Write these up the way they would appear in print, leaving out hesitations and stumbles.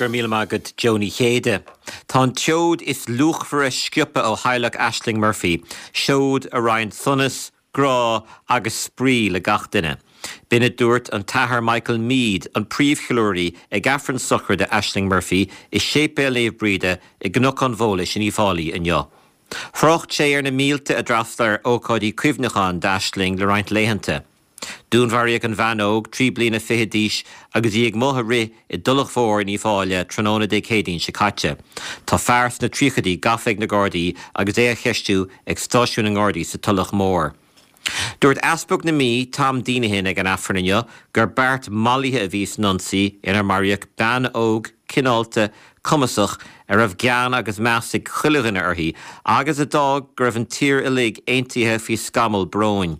Go raibh míle maith agat Joe Ní Chéide. Tá an tseoid is luachmhaire sciobtha ó theaghlach Ashling Murphy, seoid a roinn sonas, grá agus spraoi le gach duine. B'in a dúirt an tAthair Michael Meade, an príomhcheiliúraí ag Aifreann sochraide Ashling Murphy i Séipéal Naomh Bríde i gCnoc an Bhólais in Uíbh Fhailí inniu. Thrácht sé ar na mílte a d'fhreastail ar ócáidí cuimhneacháin d'Ashling le roinnt laethanta. Dúnmharaíodh an bhean óg, 23 bliana d'aois, agus í ag amuigh ag rith i dTulach Mhór in Uíbh Fhailí tráthnóna Dé Céadaoin seo caite. Tá fear sna tríochaidí gafa ag na Gardaí agus é á cheistiú ag stáisiún na nGardaí sa Tulach Mhór. Dúirt Easpag na Mí, Tom Deenihan ag an Aifreann inniu gur beart mallaithe a bhí san ionsaí inar maraíodh bean óg, cineálta, cumasach, a raibh gean agus meas ag chuile dhuine uirthi agus a d'fhág go raibh an tír uilig aontaithe faoi scamall bróin.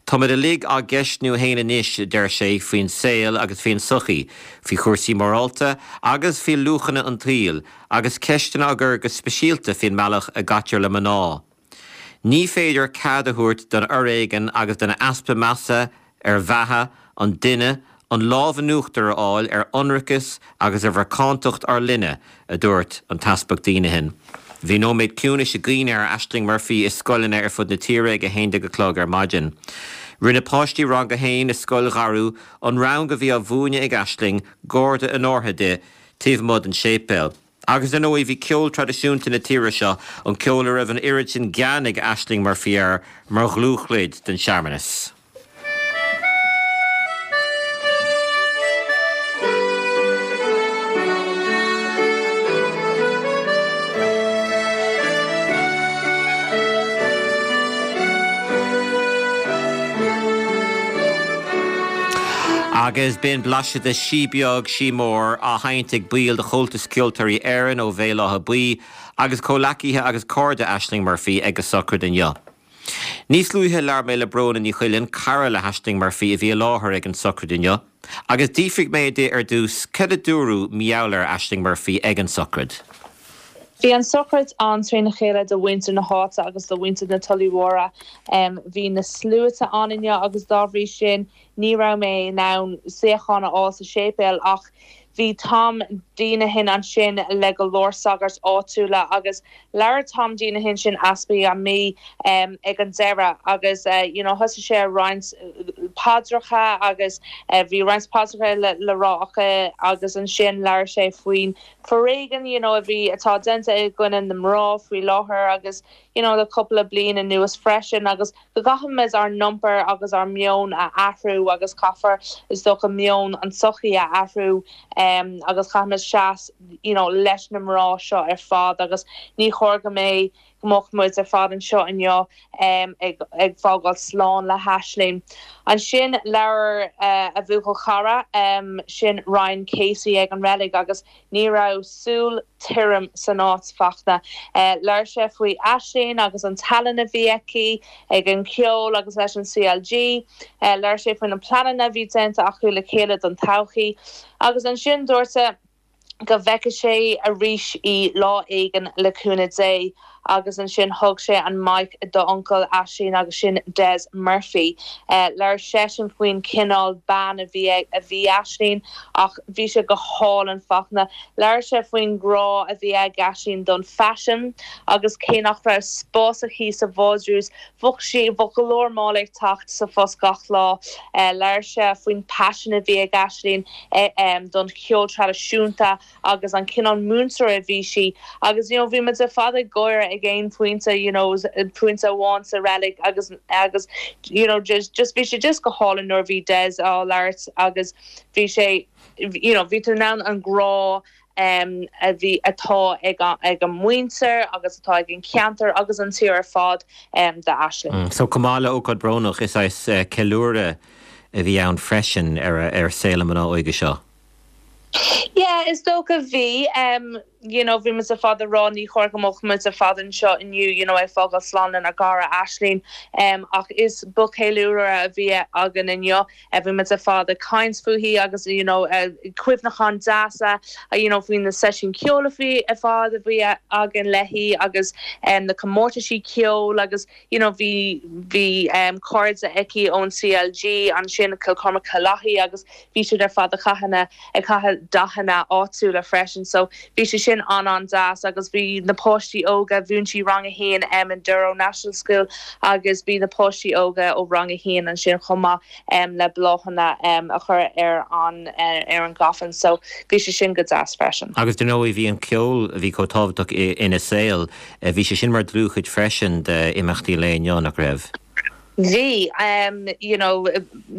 Táimid uilig á gceistniú fhéin anois, a deir sé, faoin saol agus faoin tsochaí, faoi chúrsaí morálta agus faoi luachanna an tsaoil, agus ceisteanna á gcur go speisialta faoin mbealach a gcaitear le mná. Ní féidir cead a thabhairt don fhoréigean agus don easpa measa ar bheatha an duine an lámh in uachtar a fháil ar ionracas agus ar mhacántacht ár linne, a dúirt an tEaspag Deenihan. Bhí nóiméad ciúnais i gcuimhne ar Ashling Murphy i scoileanna ar fud na tíre ag 11 a chlog ar maidin. Rinne páistí Rang 1 i Scoil Dharú, an rang a bhí á mhúineadh ag Ashling, garda onórtha di, taobh amuigh den séipéal. Agus ar ndóigh bhí ceol traidisiúnta na tíre seo, an ceol a raibh an oiread sin gean ag Ashling Murphy air, mar dhlúthchuid den searmanas. Agus b'in blaiseadh de Sí Beag, Sí Mór, á sheinnt ag baill de Chomhaltas Ceoltóirí Éireann ó Bhéal Átha Buí agus comhleacaithe agus cairde Ashling Murphy ag a sochraid inniu. Níos luaithe labhair mé le Bróna Ní Choileáin, cara le hAishling Murphy a bhí i láthair ag an sochraid inniu, agus d'fhiafraigh mé di ar dtús cad a dúradh mar gheall ar Ashling Murphy ag an sochraid. Bhí an sochraid an-trína chéile do mhuintir na háite agus do mhuintir na Tulaí Mhóire. Bhí na sluaite ann inniu agus dá bhrí sin ní raibh mé in ann suíochán a fháil sa séipéal ach bhí Tom Deenihan ansin le go leor sagairt áitiúla agus Labhair Tom Deenihan, sin Easpag na Mí, ag an deireadh agus you know thosaigh sé ag roinnt paidreacha agus bhí roinnt paidreacha le rá acu agus ansin labhair sé faoin foréigean you know a bhí, atá déanta i gcoinne na mná faoi láthair agus you know le cúpla bliain anuas freisin agus go gcaithfimid ár n-iompar agus ár meon a athrú agus caithfear is dócha meon an tsochaí a athrú agus caithfimid seas you know leis na mná seo ar fad agus ní chóir go mbeidh go mbeadh muid ar fad anseo inniu ag ag fágáil slán le hAisling. Ansin labhair a bhuachaill chara sin Ryan Casey ag an reilig agus Ní raibh súil tirim san áit, Fachtna. Labhair sé faoi Aisling agus an tallann a bhí aici ag an cheol agus leis an CLG. Labhair sé faoi na pleananna a bhí déanta acu le chéile don todhchaí. Agus ansin dúirt sé go bhfeicfidh sé arís í lá éigin le cúnamh Dé. Agus ansin thug sé an mic d'uncail Aisling agus sin Des Murphy. Labhair seisean faoin chineál bean a bhí a bhí Aisling ach bhí sé go hálainn Fachtna. Labhair sé faoin grá a bhí ag Aisling don faisean agus cé nach raibh spás aici sa vardrús bheadh sí bheadh go leor mála ag teacht sa phost gach lá. Labhair sé faoin paisean a bhí ag Aisling don cheol traidisiúnta agus an cineál múinteoir a bhí sí agus you know bhí muid ar fad ag gáire ag aon phointe you know pointe amháin sa reilig agus agus you know just just bhí sé just go hálainn nuair a bhí Des á labhairt agus bhí sé you know bhí tú in ann an grá um a bhí atá ag ag an muintir agus atá ag an cheantar agus an tír ar fad um d'Aisling. So chomh maith le ócáid brónach is saghas ceiliúradh a bhí ann freisin ar ar saol na mná óige seo. Yeah, is dócha bhí. You know, bhí muid ar fad ag rá ní chóir go mbeadh muid ar fad anseo inniu, you know, ag fágáil slán lenár gcara Aisling. Ach is ba cheiliúradh a bhí againn inniu. Bhí muid ar fad ag caint fúithi agus, you know, cuimhneacháin deasa, you know, faoi na seisiúin ceoil a bhí ar fad a bhí againn léi agus na comórtaisí ceoil agus, you know, bhí, bhí cairde aici ón CLG ansin, Cill Chormaic Cill Lathaí agus bhí siad ar fad ag caitheamh na, ag caitheamh dathanna áitiúla freisin so bhí sé sin an-an-deas agus bhí na páistí óga, mhúin sí rang a haon em in Durrow National School agus bhí na páistí óga ó rang a haon ansin chomh maith em le bláthanna em a chur ar an, ar an gcoffin so bhí sé sin go deas freisin. Agus dar ndóigh bhí an ceol a bhí chomh tábhachtach ina saol, Bhí sé sin mar dlúthchuid freisin d'imeachtaí an lae inniu, nach raibh? Bhí. You know,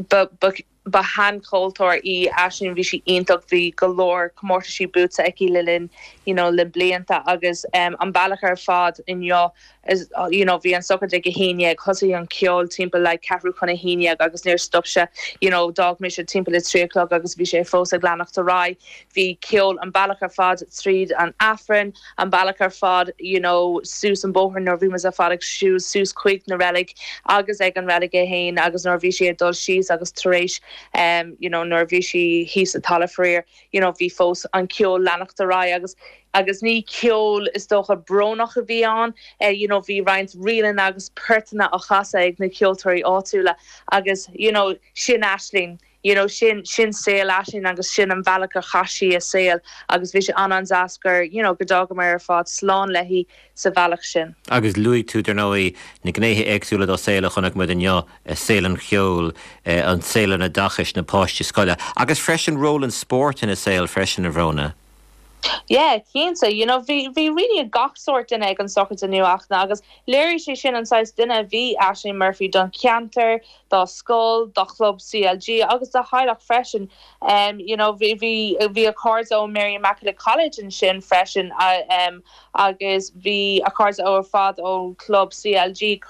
ba, ba, ba shean-cheoltóir í Aisling, bhí sí iontach, bhí go leor comórtaisí buaite aici le linn, you know, le blianta agus an bealach ar fad inniu, is, you know, bhí an sochraid ag a haon dhéag, thosaigh an ceol timpeall like ceathrú chun a haon dhéag agus níor stop sé, you know, d'fhág mise timpeall a trí a chlog agus bhí sé fós ag leanacht ar aghaidh. Bhí ceol an bealach ar fad tríd an Aifreann, an bealach ar fad you know suas an bóthar nuair a bhí muid ar fad ag siúl suas chuig na reilig agus ag an reilig é fhéin agus nuair a bhí sí ag dul síos agus tar éis em you know nuair a bhí sí thíos sa talamh faraor you know bhí fós an ceol leanacht ar aghaidh agus agus ní ceol is dócha brónach a bhí ann eh you know bhí roinnt ríleanna agus portanna á chasadh ag na ceoltóirí áitiúla agus you know sin Aisling. You know, sin, sin saol Aisling agus sin an bhealach a chaith sí a saol agus bhí sé an-an-deas gur, you know, go d'fhágamar ar fad slán léi sa bhealach sin. Agus luaigh tú, dar ndóigh, na gnéithe éagsúla dá saol a chonaic muid inniu, saol an cheoil, an saol an oideachais, na páistí scoile, agus freisin ról an spóirt ina saol freisin, a Bhróna. Yeah, cinnte. You know, bhí, bhí really gach sórt duine ag an sochraid inniu Fhachtna agus léirigh sé sin an saghas duine a bhí Aisling Murphy don cheantar, dá scoil, dá chlub CLG agus dá theaghlach freisin. Um, you know, bhí, bhí, bhí a cairde ó Mary Immaculate College ansin freisin um, agus bhí a cairde ó ar fad ó chlub CLG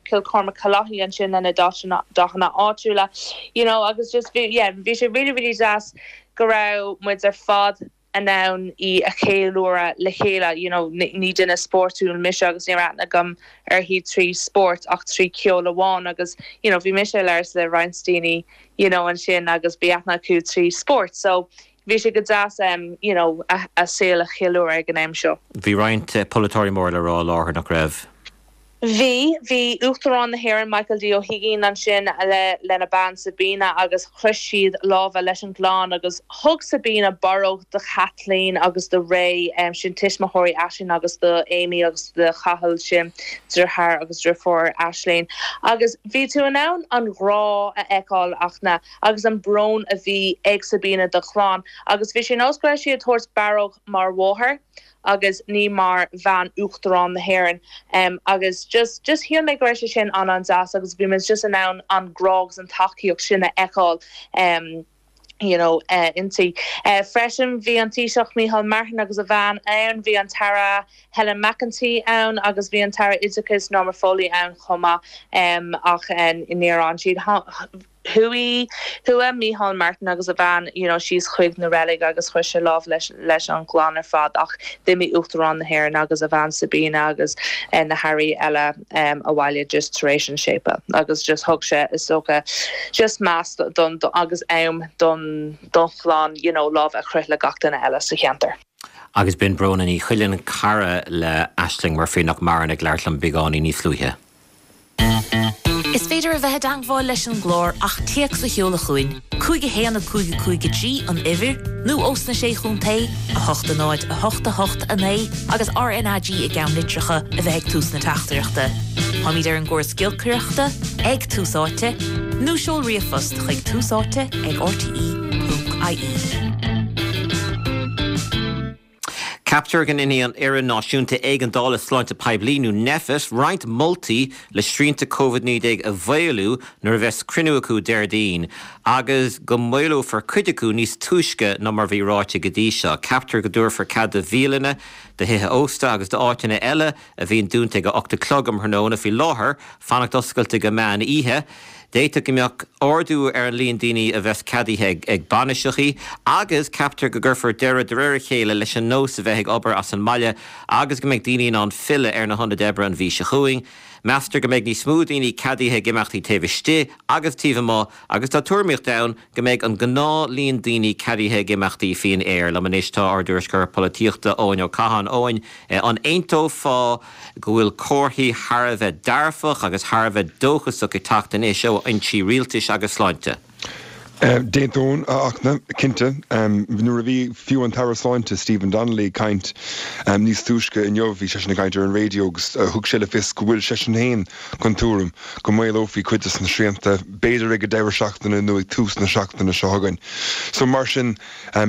Cill Chormaic Cill Lathaí ansin lena dathanna áitiúla. You know, agus just bhí, yeah, bhí sé really, really deas go raibh muid ar fad in ann í a cheiliúradh le chéile, you know, ní duine spórtúil mise agus ní raibh aithne agam uirthi trí spórt ach trí ceol amháin agus, you know, bhí mise ag labhairt le roinnt daoine, you know, ansin agus bhí aithne acu trí spórt so bhí sé go deas em, you know, a saol a cheiliúradh ag an am seo. Bhí roinnt polaiteoirí mór le rá i láthair, nach raibh? Bhí. Bhí Uachtarán na hÉireann Michael D. Ó hUigínn ansin le lena bean Sabina agus chroith siad lámha leis an gclann agus thug Sabina barróg do Kathleen agus do Ray, sin tuismitheoirí Aisling agus do Amy agus do Chathal, sin deartháir agus deirfiúr Aisling. Agus bhí tú in ann an grá a fheiceáil Fhachtna agus an brón a bhí ag Sabina dá clann agus bhí sé nós go raibh sí ag tabhairt barróg mar mháthair agus ní mar bhean Uachtarán na hÉireann agus just just shíl mé go raibh sé sin an-an-deas agus bhí muid just in ann an grá agus an tacaíocht sin a fheiceáil you know inti. Freisin bhí an Taoiseach Micheál Martin agus a bhean ann, bhí an tAire Helen McEntee ann agus bhí an tAire Oideachais Norma Foley ann chomh maith ach níor fhan siad. Chuaigh, chuaigh Micheál Martin agus a bhean, you know, síos chuig na reilig agus chroith sé lámh leis, leis an gclann ar fad ach d'imigh Uachtarán na hÉireann agus a bhean Sabina agus na hairí eile abhaile just tar éis an séipéil agus just thug sé, is dócha, just meas don, agus am don, don chlann, you know, lámh a chroith le gach duine eile sa cheantar. Agus b'in Bróna Ní Choileáin, cara le Ashling Murphy nach maireann ag labhairt liom beagáinín níos luaithe. Is féidir a bheith i dteangmháil leis an gclár ach téacs a sheoladh chugainn, 5 1 5 5 3 an uimhir, nó ós na Sé Chontae, 8 0 8 8 9 agus RnaG i gceannlitreacha a bheith ag tús na teachtaireachta. Táimid ar an gcóras giolcaireachta, ag Tús Áite, nó seol ríomhphost chuig túsáite ag rte.ie. Ceaptar go ndéanfaidh an Fhoireann Náisiúnta Éigeandála Sláinte Poiblí, nó Nphet, roinnt moltaí le srianta Covid-19 a mhaolú nuair a bheas cruinniú acu Déardaoin. agus go maolófar cuid acu níos túisce ná mar a bhí ráite go dtí seo. Ceaptar go dtabharfar cead do bhialanna, do thithe ósta agus d'áiteanna eile a bhíonn dúnta ag a 8 a chlog um thráthnóna faoi láthair, fanacht oscailte go meán oíche. D'fhéadfadh go mbeadh ardú ar an líon daoine a bheas ceadaithe ag bainiseachaí agus ceaptar go gcuirfear deireadh de réir a chéile leis an nós a bheith ag obair as an mbaile agus go mbeidh daoine in ann filleadh ar na hionaid oibre an mhí seo chugainn. Meastar go mbeidh níos mó daoine ceadaithe ag imeachtaí taobh istigh agus taobh amuigh agus tá tuairimíocht ann go mbeidh an gnáth líon daoine ceadaithe ag imeachtaí faoin aer. Liom anois tá ár dtuairisceoir polaitíochta Eoin Ó Catháin. Eoin, an aontófá go bhfuil comharthaí thar a bheith dearfach agus thar a bheith dóchasach ag teacht anois ó fhoinsí rialtais agus sláinte? D'aontóinn, a Fhachtna, cinnte. Nuair a bhí fiú an tAire Sláinte Stephen Donnelly ag caint níos túisce inniu, bhí seisean ag caint ar an raidió agus thug sé le fios go bhfuil seisean féin den tuairim go maolófaí cuid de na srianta, b'fhéidir ag an deireadh seachtaine nó ag tús na seachtaine seo chugainn. So mar sin,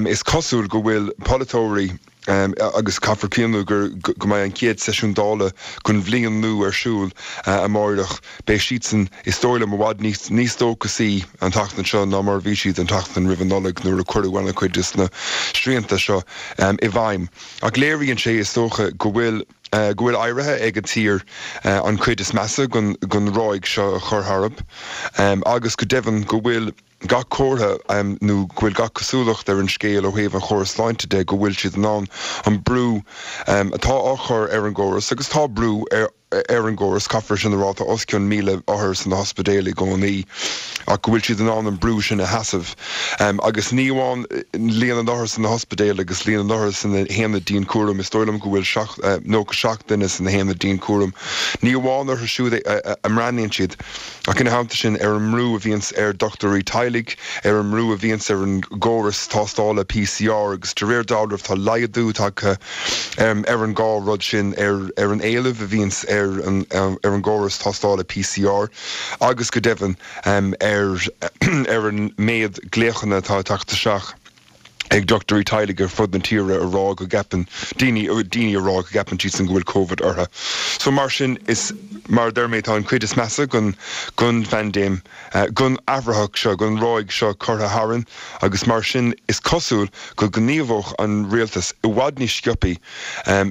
is cosúil go bhfuil polaiteoirí, agus caithfear cuimhniú gur go mbeidh an chéad seisiún Dála den bhliain nua ar siúl amáireach. Beidh siadsan, is dóigh liom, i bhfad níos níos dóchasaí an tseachtain seo ná mar a bhí siad an tseachtain roimh an Nollaig nuair a cuireadh an-chuid de na srianta seo i bhfeidhm. Ach léiríonn sé, is dócha, go bhfuil go bhfuil éirithe ag an tír an chuid is measa den den ráig seo a chur tharb agus go deimhin go bhfuil gach comhartha, nó go bhfuil gach cosúlacht ar an scéal ó thaobh an chórais sláinte de, go bhfuil siad in ann an brú atá á chur ar an gcóras, agus tá brú ar ar an gcóras, caithfear sin a rá, tá os cionn 1,000 othar sna hospidéil i gcónaí, ach go bhfuil siad in ann an brú sin a sheasamh. Agus ní amháin líon na n-othar sna hospidéil agus líon na n-othar sna haonaid dianchúraim, is dóigh liom go bhfuil 97 duine sna haonaid dianchúraim, ní amháin orthu siúd a mbreathnaíonn siad, Ach ina theannta sin, ar an mbrú a bhíonns ar dochtúirí teaghlaigh, ar an mbrú a bhíonns ar an gcóras tástála PCR agus de réir dealraimh tá laghdú tagtha ar an dhá rud sin, ar an éileamh a bhíonns ar an ar an gcóras tástála PCR agus go deimhin ar ar an méad glaochanna atá ag teacht isteach. ag dochtúirí teaghlaigh ar fud na tíre a rá go gceapann daoine, daoine a rá go gceapann siadsan go bhfuil Covid orthu. So mar sin, is, mar a deir mé, tá an chuid is measa den, den phaindéim, den athraitheach seo, den ráig seo curtha tharainn agus mar sin is cosúil go ngníomhódh an rialtas i bhfad níos sciopaí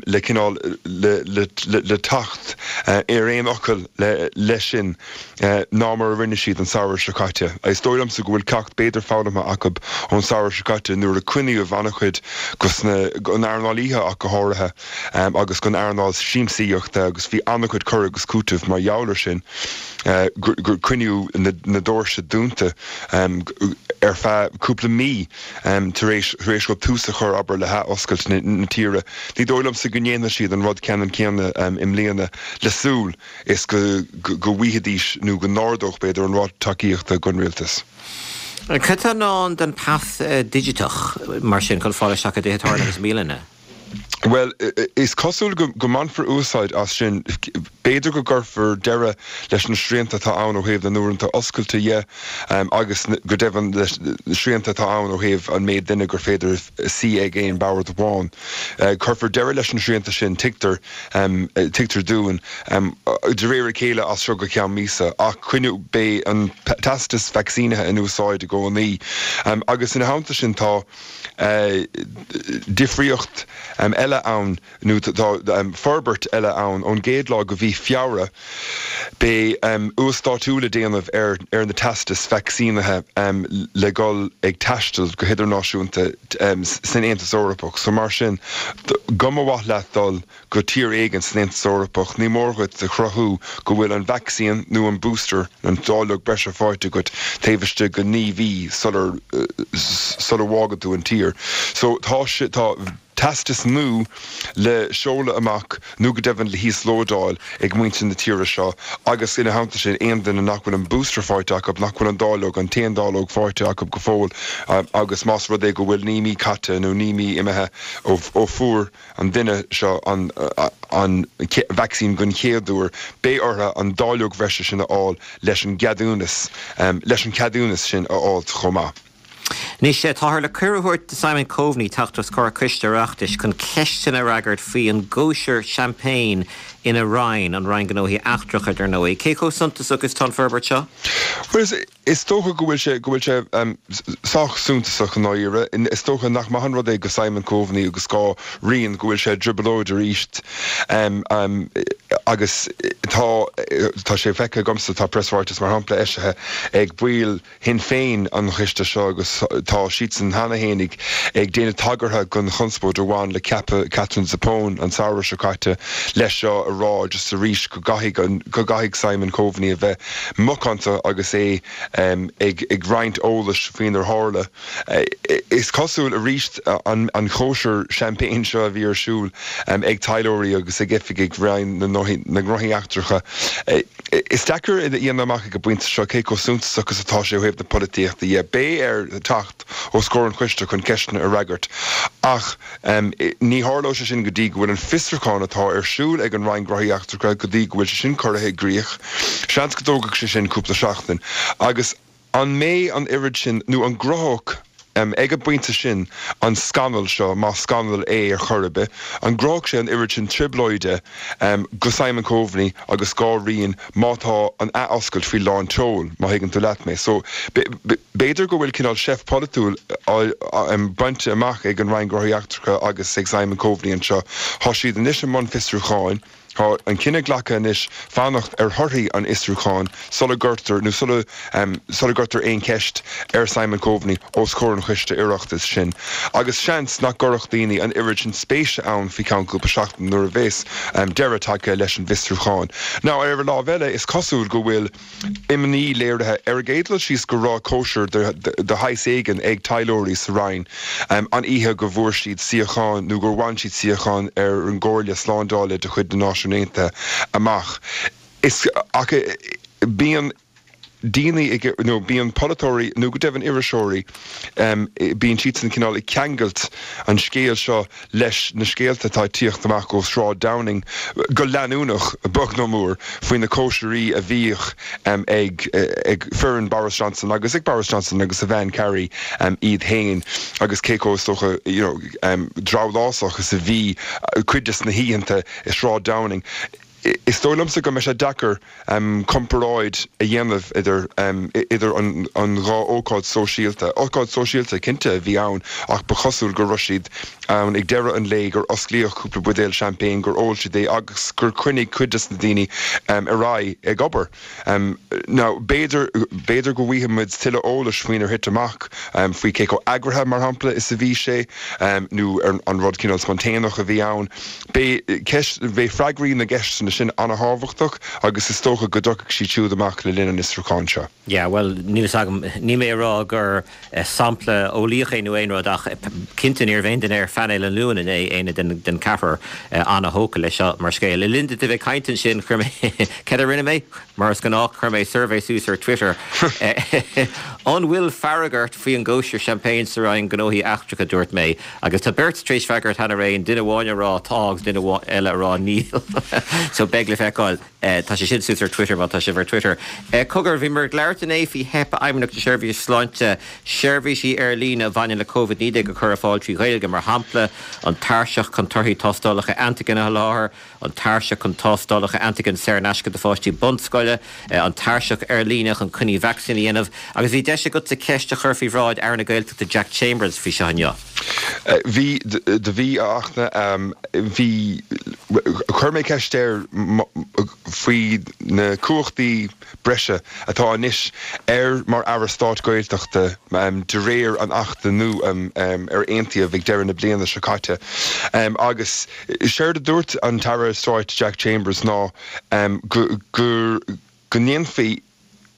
le cineál, le, le, le teacht ar aon fhocal le, leis sin. ná mar a rinne siad an samhradh seo caite. Is dóigh liomsa go bhfuil ceacht b'fhéidir foghlamtha acu ón samhradh seo caite nuair a coinníodh an-chuid den earnáil oíche ach go háirithe agus den earnáil siamsaíochta agus bhí an-chuid cur agus cúiteamh mar gheall ar sin gur coinníodh na doirse dúnta ar feadh cúpla mí tar éis tar éis dóibh tús a chur abair le hathoscailt na tíre. Ní dóigh liomsa go ndéanfaidh siad an rud ceannann céanna i mbliana le súil is go go bhfaighidís, nó go n-ardódh, b'fhéidir, an ráta tacaíochta don rialtas. Cad tá i ndán don phas digiteach, mar sin, chun fáil isteach i dtithe tábhairne agus i mbialanna? Bhuel, is cosúil go go mbainfear úsáid as sin. B'fhéidir go gcuirfear deireadh leis na srianta atá ann ó thaobh na n-uaireanta oscailte dhe agus go deimhin leis na srianta atá ann ó thaobh an méid duine gur féidir suí ag aon bhord amháin. Cuirfear deireadh leis na srianta sin, tuigtear. Tuigtear dúinn, de réir a chéile as seo go ceann míosa, ach coinneoidh, beidh an teastas vacsaínithe in úsáid i gcónaí. Agus ina theannta sin tá difríocht eile ann, nó tá forbairt eile ann, ón gcéad lá de mhí Feabhra beidh uasdátú le déanamh ar ar na teastais vacsaínithe le dhul ag taisteal go hidirnáisiúnta san Aontas Eorpach. So mar sin, go mba mhaith leat dul go tír éigin san Aontas Eorpach, ní mór dhuit a chruthú go bhfuil an vacsaín nó an booster, an dáileog breise faighte agat taobh istigh de 9 mhí sular sula bhfágann tú an tír. So tá tá. teastas nua le seoladh amach nó go deimhin le híoslódáil ag muintir na tíre seo agus ina theannta sin aon duine nach bhfuil an booster faighte acu, nach bhfuil an dáileog, an t-aon dáileog faighte acu go fóill agus más rud é go bhfuil 9 mí caite nó 9 mí imithe ó fuair an duine seo an an vacsaín den chéad uair, beidh orthu an dáileog bhreise sin a fháil leis an gceadúnas, leis an cheadúnas sin a fháilt chomh maith. Anois, táthar le cuireadh a thabhairt do Simon Coveney teacht os comhair coiste Oireachtais chun ceisteanna a fhreagairt faoi an gcóisir champagne. ina Roinn, an Roinn Gnóthaí Eachtracha, dar ndóigh. Cé chomh suntasach is atá an forbairt seo? Bhuel, is dócha go bhfuil sé, go bhfuil sé sách suntasach i ndáiríre. Is dócha nach maith an rud é go Simon Coveney agus dhá Roinn go bhfuil sé i dtrioblóid arís agus tá, tá sé feicthe agamsa, tá preasráiteas mar shampla eisithe ag baill Shinn Féin an choiste seo agus tá siadsan cheana féin ag déanamh tagartha don chonspóid a bhain le ceapadh Katherine Zappone an samhradh seo caite leis seo a rá just arís go gcaithfidh go gcaithfidh Simon Coveney a bheith macánta agus é ag roinnt eolais faoinar tharla. Is cosúil arís an chóisir champagne seo a bhí ar siúl ag taidhleoirí agus ag oifigigh Roinn na nGnóthaí Eachtracha. Is deacair a dhéanamh amach ag an bpointe seo cé chomh suntasach is atá sé ó thaobh na polaitíochta dhe. Beidh air teacht os comhair an choiste chun ceisteanna a fhreagairt ach ní tharlóidh sé sin go dtí go bhfuil an fiosrúchán atá ar siúl ag an Roinn Gnóthaí Eachtracha go dtí go bhfuil sé sin curtha i gcrích. Seans go dtógfaidh sé sin cúpla seachtain agus An mbeidh an oiread sin, nó an gcruthódh, ag an bpointe sin, an scannal seo, más scannal é ar chor ar bith, an gcruthódh sé an oiread sin trioblóide go Simon Coveney agus dhá Roinn má tá an athoscailt faoi lán tseoil, má thuigeann tú leat mé. So, b'fhéidir go bhfuil cineál seift pholaitiúil bainte amach ag an Roinn Gnóthaí Eachtracha agus ag Simon Coveney anseo. Tá siad anois i mbun fiosrúcháin. Tá an cinneadh glactha anois fanacht ar thorthaí an fhiosrúcháin sula gcuirtear nó sula sula gcuirtear aon cheist ar Simon Coveney os comhair an choiste Oireachtais sin. Agus seans nach gcuirfeadh daoine an oiread sin spéise ann faoi cheann cúpla seachtain nuair a bheas deireadh tagtha leis an bhfiosrúchán. Now ar an lámh eile is cosúil go bhfuil imní léirithe. Ar an gcéad dul síos go raibh cóisir de shaghas éigin ag taidhleoirí sa Roinn an oíche go bhfuair siad suíochán nó gur bhain siad suíochán ar an gComhairle Slándála de chuid na Náisiún Aontaithe amach. Is ach bíonn daoine ag nó bíonn polaiteoirí nó go deimhin iriseoirí, bíonn siadsan cineál ag ceangailt an scéal seo leis na scéalta atá ag tíocht amach ó Shráid Downing go leanúnach, beag nó mór, faoi na cóisirí a bhíodh ag foireann Boris Johnson agus ag Boris Johnson agus a bhean Carrie iad féin agus cé chomh, is dócha, you know, drabhlásach is a bhí cuid des na hoícheanta i Sráid Downing. Is dóigh liomsa go mbeidh sé deacair comparáid a dhéanamh idir idir an dhá ócáid sóisialta. Ócáid sóisialta, cinnte, a bhí ann ach ba chosúil go raibh siad ann ag deireadh an lae, gur osclaíodh cúpla buidéal champagne, gur ól siad é agus gur choinnigh cuid des na daoine ar aghaidh ag obair. Now, b'fhéidir, b'fhéidir go bhfaighidh muid tuilleadh eolais faoinar thit amach, faoi cé chomh eagraithe, mar shampla, is a bhí sé, nó an rud cineál spontaneach a bhí ann. Beidh ceist, beidh freagraí na gceisteanna sin an-thábhachtach agus is dócha go dtiocfaidh siad siúd amach le linn an fhiosrúcháin seo. Yeah, bhuel, níl fhios agam, níl mé ag rá gur sampla eolaíoch é nó aon rud ach cinnte ní raibh aon duine ar phainéal an Luain inné, éinne den ceathrar, an-thógtha leis seo mar scéal. Le linn duit a bheith ag caint ansin, chuir mé, céard a rinne mé? Mar is gnách, chuir mé suirbhé suas ar Twitter. An bhfuil fearg ort faoi an gcóisir champagne sa Roinn Gnóthaí Eachtracha, dúirt mé. Agus tá beirt tar éis freagairt cheana féin, duine amháin a rá tá agus duine eile a rá níl. So beidh le feiceáil. Tá sé sin suas ar Twitter má tá sibh ar Twitter. Cogar, bhíomar ag labhairt inné faoi theip Fheidhmeannacht na Seirbhíse Sláinte seirbhísí ar líne a bhaineann le Covid-19 a chur ar fáil trí Ghaeilge, mar shampla an tairseach chun torthaí tástálacha antaigin a sholáthar, an tairseach chun tástálacha antaigin saor in aisce do pháistí bunscoile, an tairseach ar líne chun coinní vacsaín a dhéanamh, agus bhí deis agatsa ceist a chur faoi bhráid Aire na Gaeltachta Jack Chambers faoi seo inniu. Bhí, do bhí, a Fhachtna, bhí, chuir mé ceist air faoi na cumhachtaí breise atá anois air mar Aire Stáit Gaeltachta de réir an Achta nua ar aontaíodh ag deireadh na bliana seo caite agus séard a dúirt an tAire Stáit Jack Chambers ná go go ndéanfaí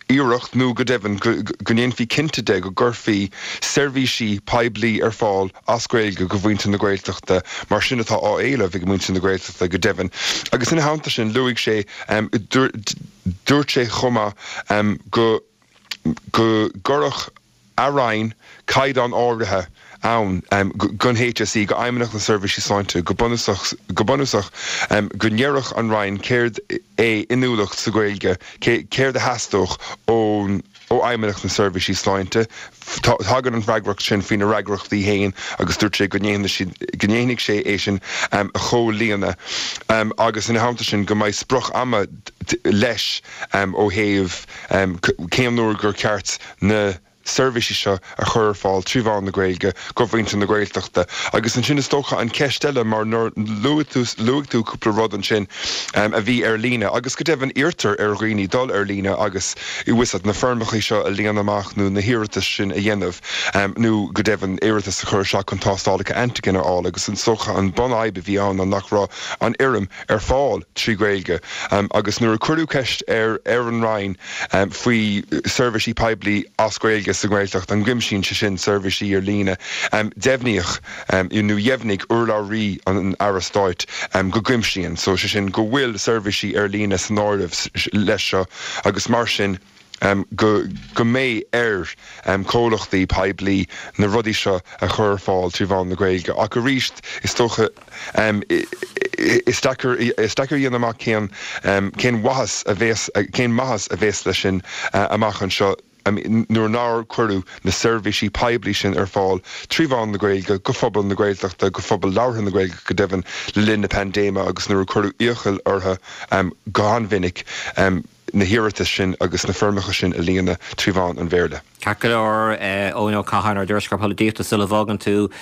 iarracht nó go deimhin go ndéanfaí cinnte de go gcuirfí seirbhísí poiblí ar fáil as Gaeilge go mhuintir na Gaeltachta mar sin atá á éileamh ag muintir na Gaeltachta go deimhin. Agus ina theannta sin luaigh sé, dúirt sé chomh maith go go gcuirfeadh a Roinn caighdeán áirithe ann don HSE, go Fheidhmeannacht na Seirbhísí Sláinte, go bunúsach, go bunúsach go ndéarfadh an Roinn céard é inniúlacht sa Ghaeilge, céard a theastódh ón. ó Fheidhmeannacht na Seirbhísí Sláinte. Tagann an fhreagracht sin faoina fhreagrachtaí féin agus dúirt sé go ndéanfaidh sé é sin a chomhlíonadh agus ina theannta sin go mbeidh sprioc ama leis ó thaobh cén uair gur ceart na seirbhísí seo a chur ar fáil trí mheán na Gaeilge go mhuintir na Gaeltachta. Agus ansin is dócha an cheist eile mar nuair luaigh tú luaigh tú cúpla rud ansin a bhí ar líne agus go deimhin iarrtar ar dhaoine dul ar líne agus bhfuil fhios agat na foirmeacha seo a líonadh amach nó na hiarratais sin a dhéanamh nó go deimhin iarratas a chur isteach chun tástálacha antigen a fháil agus is dócha an bunfhadhb a bhí ann ná nach raibh an fhoirm ar fáil trí Ghaeilge agus nuair a cuireadh ceist ar ar an Roinn faoi seirbhísí poiblí as Gaeilge sa nGaeltacht, an gcuimsíonn sé sin seirbhísí ar líne, deimhníodh nó dheimhnigh urlabhraí an Aire Stáit go gcuimsíonn, so sé sin go bhfuil seirbhísí ar líne san áireamh leis seo agus mar sin go go mbeidh ar chomhlachtaí poiblí na rudaí seo a chur ar fáil trí mheán na Gaeilge. Ach arís, is dócha, is deacair is deacair a dhéanamh amach cén cén mhaitheas a bhéas cén maitheas a bhéas leis sin amach anseo nuair nár cuireadh na seirbhísí poiblí sin ar fáil trí mheán na Gaeilge go phobal na Gaeltachta, go phobal labhartha na Gaeilge go deimhin, le linn na paindéime agus nuair a cuireadh iachall orthu go han-mhinic na hiarratais sin agus na foirmeacha sin a líonadh trí mheán an Bhéarla. Ceart go leor, Eoin Ó Catháin, ár dtuairisceoir polaitíochta, sula bhfágann tú,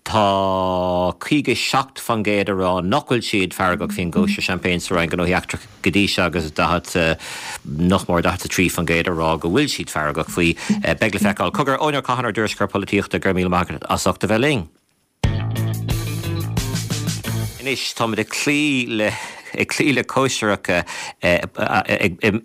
tá 57% ag rá nach bhfuil siad feargach faoin gcóisir seaimpéin sa Roinn Gnóthaí Eachtracha go dtí seo agus 40, nach mór 43% ag rá go bhfuil siad feargach faoi. Beidh le feiceáil. Cogar, Eoin Ó Catháin, ár dtuairisceoir polaitíochta, go raibh míle maith agat as ucht a bheith linn. Anois táimid ag cloí le ag cloí le cóisireacha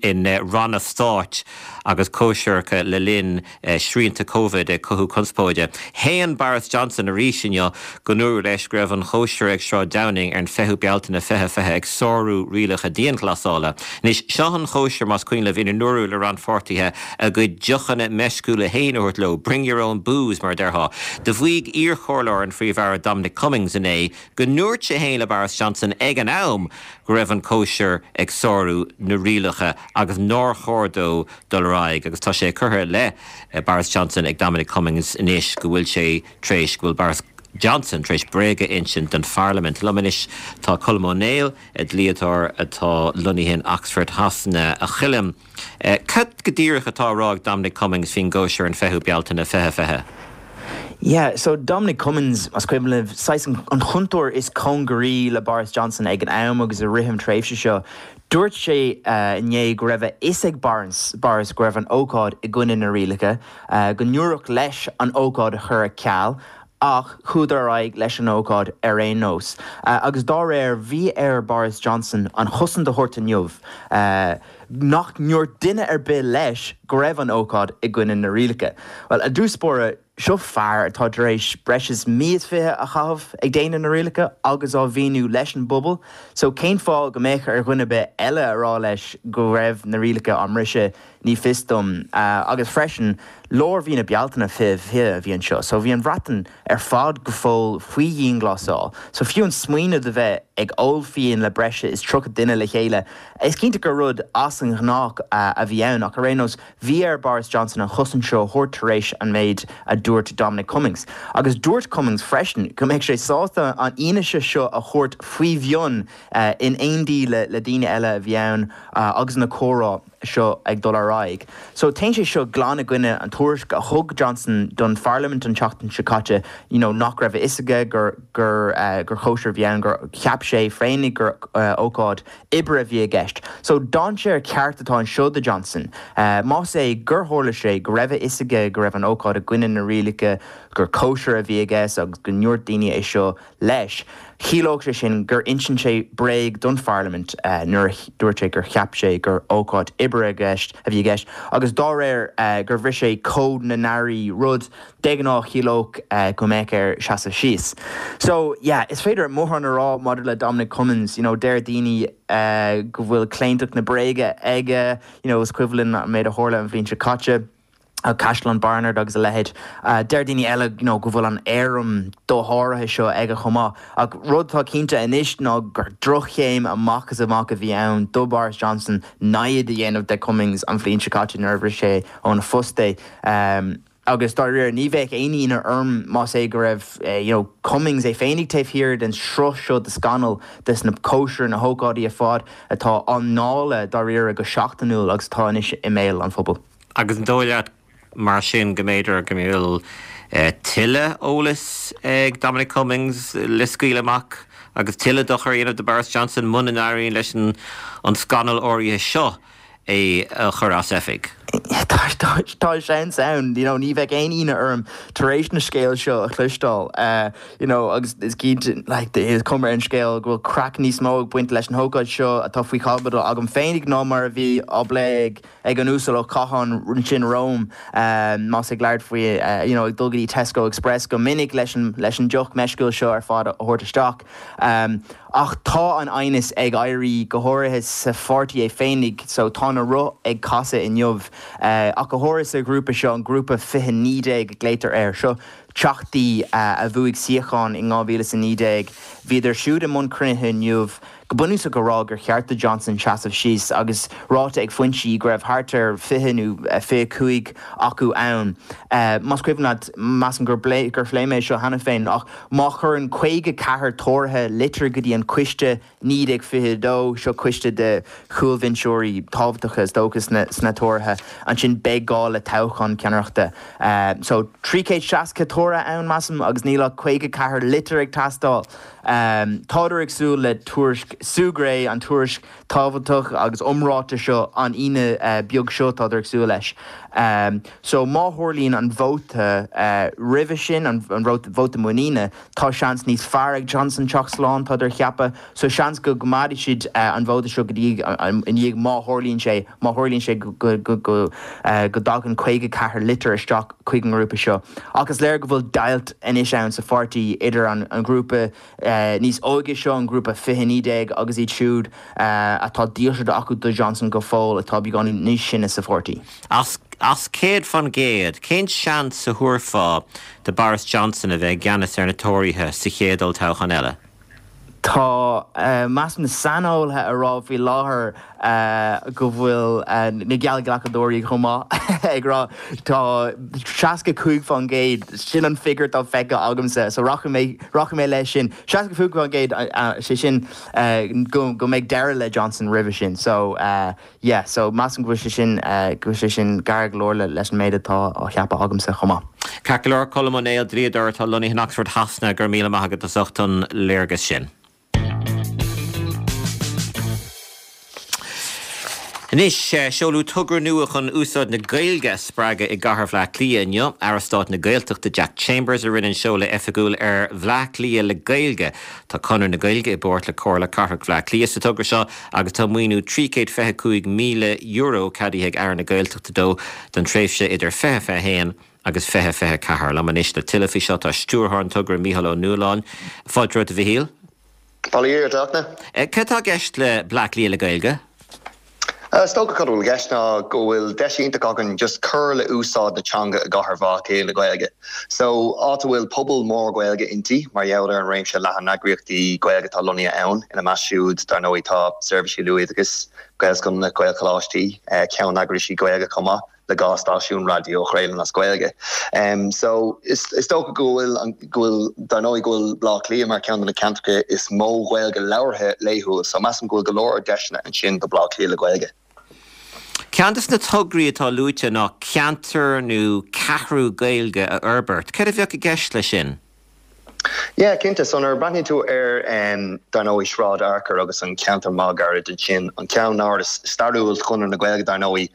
in ranna stáit agus cóisireacha le linn srianta Covid ag cothú conspóide. Shéan Boris Johnson arís inniu go ndúradh leis go raibh an chóisir ag Sráid Downing ar an 20ú Bealtaine 2020 ag sárú rialacha dianghlasála. Anois, seo an chóisir, más cuimhin libh, ina ndúradh le rannpháirtithe a gcuid deochanna meisciúla féin a thabhairt leo, bring your own booze, mar a déarfá. Do mhaígh iarchomhairleoir an Phríomh-Aire Dominic Cummings inné go ndúirt sé féin le Boris Johnson ag an am go raibh an cóisir ag sárú na rialacha agus nár chóir dó dul ar aghaidh agus tá sé curtha i leith Boris Johnson ag Dominic Cummings anois go bhfuil sé tar éis, go bhfuil Boris Johnson tar éis bréag a insint don pharlaimint. Liom anois tá Colm Ó Néill, dlíodóir atá lonnaithe in Oxford Shasana. A Choilm, cad go díreach atá á rá ag Dominic Cummings faoin gcóisir an 20ú Bealtaine 2020? Yeah, so Dominic Cummings, más cuimhin libh, saghas an chúntóir is cóngaraí le Boris Johnson ag an am agus i rith an tréimhse seo, Dúirt sé inné go raibh a fhios ag Boris go raibh an ócáid i gcoinne na rialacha, go ndúradh leis an ócáid a chur ar ceal ach chuadar ar aghaidh leis an ócáid ar aon nós. Agus dá réir, bhí ar Boris Johnson an chosaint a thabhairt inniu nach ndúirt duine ar bith leis go raibh an ócáid i gcoinne na rialacha. Bhuel, i dtús báire, Seo fear atá tar éis breis is mí is fiche a chaitheamh ag déanamh na rialacha agus á mhíniú leis an bpobal, so cén fáth go mbeadh ar dhuine ar bith eile a rá leis go raibh na rialacha á mbriseadh, ní fios dom. Agus freisin, lár mhí na Bealtaine 2020 a bhí anseo, so bhí an Bhreatain ar fad go fóill faoi dhianghlasáil, so fiú an smaoineamh de bheith ag ól fíon le breis is 30 duine le chéile, is cinnte gur rud as an ghnách a bhí ann, ach ar aon nós, Bhí ar Boris Johnson an chosaint seo a thabhairt tar éis an méid a dúirt Dominic Cummings. Agus dúirt Cummings freisin go mbeadh sé sásta an fhianaise seo a thabhairt faoi mhionn in éindí le daoine eile a bhí ann agus na comhrá seo ag dul ar aghaidh. So téann sé seo glan i gcoinne an tuairisc a thug Johnson don pharlaimint an tseachtain seo caite you know nach raibh a fhios aige gur gur gur chóisir a bhí ann, gur cheap sé féinig gur ócáid oibre a bhí i gceist. So, dainséar ceart atá anseo do Johnson. Más é gur tharla sé go raibh a fhios aige go raibh an ócáid i gcoinne na rialacha, gur cóisir a bhí i gceist agus go ndúirt daoine é seo leis, chiallódh sé sin gur insint sé bréag don pharlaimint nuair a dúirt sé gur cheap sé gur ócáid oibre a bhí i gceist agus dá réir gur bhris sé cód na n-airí, rud De ghnáth chiallódh go mbeadh air seasamh síos. So, yeah, is féidir mórán a rá maidir le Dominic Cummings, you know, deir daoine go bhfuil claontacht na bréige aige, you know, is cuimhin linn an méid a tharla an bhliain seo caite. Caisleán Barnard agus a leithéid. Deir daoine eile you know go bhfuil an éirim dosháraithe seo aige chomh maith. Ach rud atá cinnte anois ná gur droch-chéim amach is amach a bhí ann do Boris Johnson namhaid a dhéanamh de Cummings an bhliain seo caite nuair a bhris sé óna phost é. Agus dáiríre, ní bheadh aon ionadh orm más é go raibh you know Cummings é féinig taobh thiar den sruth seo de scannail, des na cóisirí, na hócáidí ar fad atá á ndáileadh dáiríre go seachtainiúil agus atá anois i mbéal an phobail. Agus an dóigh leat mar sin go mb'fhéidir go mbeadh tuilleadh eolais ag Dominic Cummings le scaoileadh amach agus tuilleadh dochair a dhéanamh do Boris Johnson muna n-éiríonn leis an scannal áirithe seo é a chur as oifig? Tá seans ann, you know, ní bheadh aon ionadh orm tar éis na scéal seo a chloisteáil, you know, agus is cinnte, like, is cuma ar an scéal go bhfuil craic níos mó ag baint leis an hócáid seo atá faoi chaibidil agam féinig ná mar a bhí á bplé ag ag an Uasal Ó Catháin ansin romham, más ag labhairt faoi, you know, ag dul go dtí Tesco Express go minic leis an, leis an deoch meisciúil seo ar fad a thabhairt isteach. Ach tá an aighneas ag éirí, go háirithe sa pháirtí é féinig, so tá na roth ag casadh inniu, ach go háirithe sa ghrúpa seo, an grúpa 2019 a glaotar air. Seo teachtaí a bhuaigh suíochán in 2019. Bhíodar siúd i mbun cruinnithe inniu. Go bunúsach a rá gur cheart do Johnson seasamh síos agus ráite ag foinsí go raibh thart ar 20 nó 25 acu ann. Más cuimhin leat, measaim gur gur phléigh mé seo cheana féin, ach má chuireann 54 Tóraithe litir go dtí an coiste 1922, seo coiste de chúlbhinseoirí tábhachtacha is dócha sna Tóraithe, ansin beidh gá le toghchán ceannaireachta. So 360 Tóraithe ann, measaim, agus níl ach 54 litir ag teastáil. Tádar ag súil le tuairisc Sue Gray, an tuairisc tábhachtach agus iomráite seo an Aoine beag seo, tádar ag súil leis. So má tharlaíonn an vóta roimhe sin, an vóta muiníne, tá seans níos fearr ag Johnson teacht slán, tádar ag ceapadh. So seans go gcoimeádfaidh siad an vóta seo go dtí i ndiaidh má tharlaíonn sé, má tharlaíonn sé go go dtagann 54 litir isteach chuig an ngrúpa seo. Ach is léir go bhfuil deighilt anois ann sa pháirtí idir an grúpa níos óige seo, an grúpa 2019, agus iad siúd atá dílseacht acu do Johnson go fóill, atá beagáinín níos sine sa pháirtí. As 100%, cén seans a thabharfá do Boris Johnson a bheith i gceannas ar na Tóraithe sa chéad olltoghchán eile? Tá, measaim, na saineolaithe ag rá faoi láthair go bhfuil na geallghlacadóirí chomh maith ag rá tá 65%, sin an figiúr atá feicthe agamsa, so rachaidh mé, rachaidh mé leis sin. 65%, sé sin go mbeidh deireadh le Johnson roimhe sin. So. Yeah, so measaim go bhfuil sé sin, go bhfuil sé sin gar go leor leis an méid atá á cheapadh agamsa chomh maith. Ceart go leor, Colm Ó Néill, dlíodóir atá lonnaithe in Oxford Shasana, go raibh míle maith agat as ucht an léargas sin. Anois, seoladh togra nua chun úsáid na Gaeilge a spreagadh i gcathair Bhaile Átha Cliath inniu. Aire Stáit na Gaeltachta Jack Chambers a rinne an seoladh oifigiúil ar Bhleá Cliath le Gaeilge. Tá Conradh na Gaeilge i bpáirt le Comhairle Cathrach Bhaile Átha Cliath sa togra seo agus tá maoiniú €325,000 ceadaithe ag Aire na Gaeltachta dó don tréimhse idir 2021 agus 2024. Liom anois le tuilleadh faoi seo tá stiúrthóir an togra, Mícheál Ó Nualláin. Fáilte romhat a Mhichíl. Bail ó Dhia ort, a Fhachtna. Cad atá i gceist le Bleá Cliath le Gaeilge? Is dócha cad a bhfuil i gceist ná go bhfuil deis iontach againn just cur le úsáid na teanga i gcathair Bhaile Átha Cliath le Gaeilge. So, áit a bhfuil pobal mór Gaeilge inti, mar gheall ar an réimse leathan eagraíochtaí Gaeilge atá lonnaithe ann, ina measc siúd, dar ndóigh, tá seirbhísí luathoideachais, Gaelscoileanna, Gaelcholáistí, ceanneagraisí Gaeilge chomh maith. le 2 stáisiún raidió a chraolann as Gaeilge. So, is dócha go bhfuil, go bhfuil, dar ndóigh go bhfuil Baile Átha Cliath mar cheann de na ceantracha is mó Ghaeilge labhartha laethúil, so measaim go bhfuil go leor deiseanna ansin do Bhaile Átha Cliath le Gaeilge. Ceann de na tograí atá luaite ná ceantar nó ceathrú Gaeilge a fhorbairt. Céard a bheadh i gceist leis sin? Yeah, cinnte. So nuair a breathnaíonn tú ar, dar ndóigh, Sráid Fhearchair agus an ceantar máguaird ansin, an ceannáras stairiúil Chonradh na Gaeilge, dar ndóigh,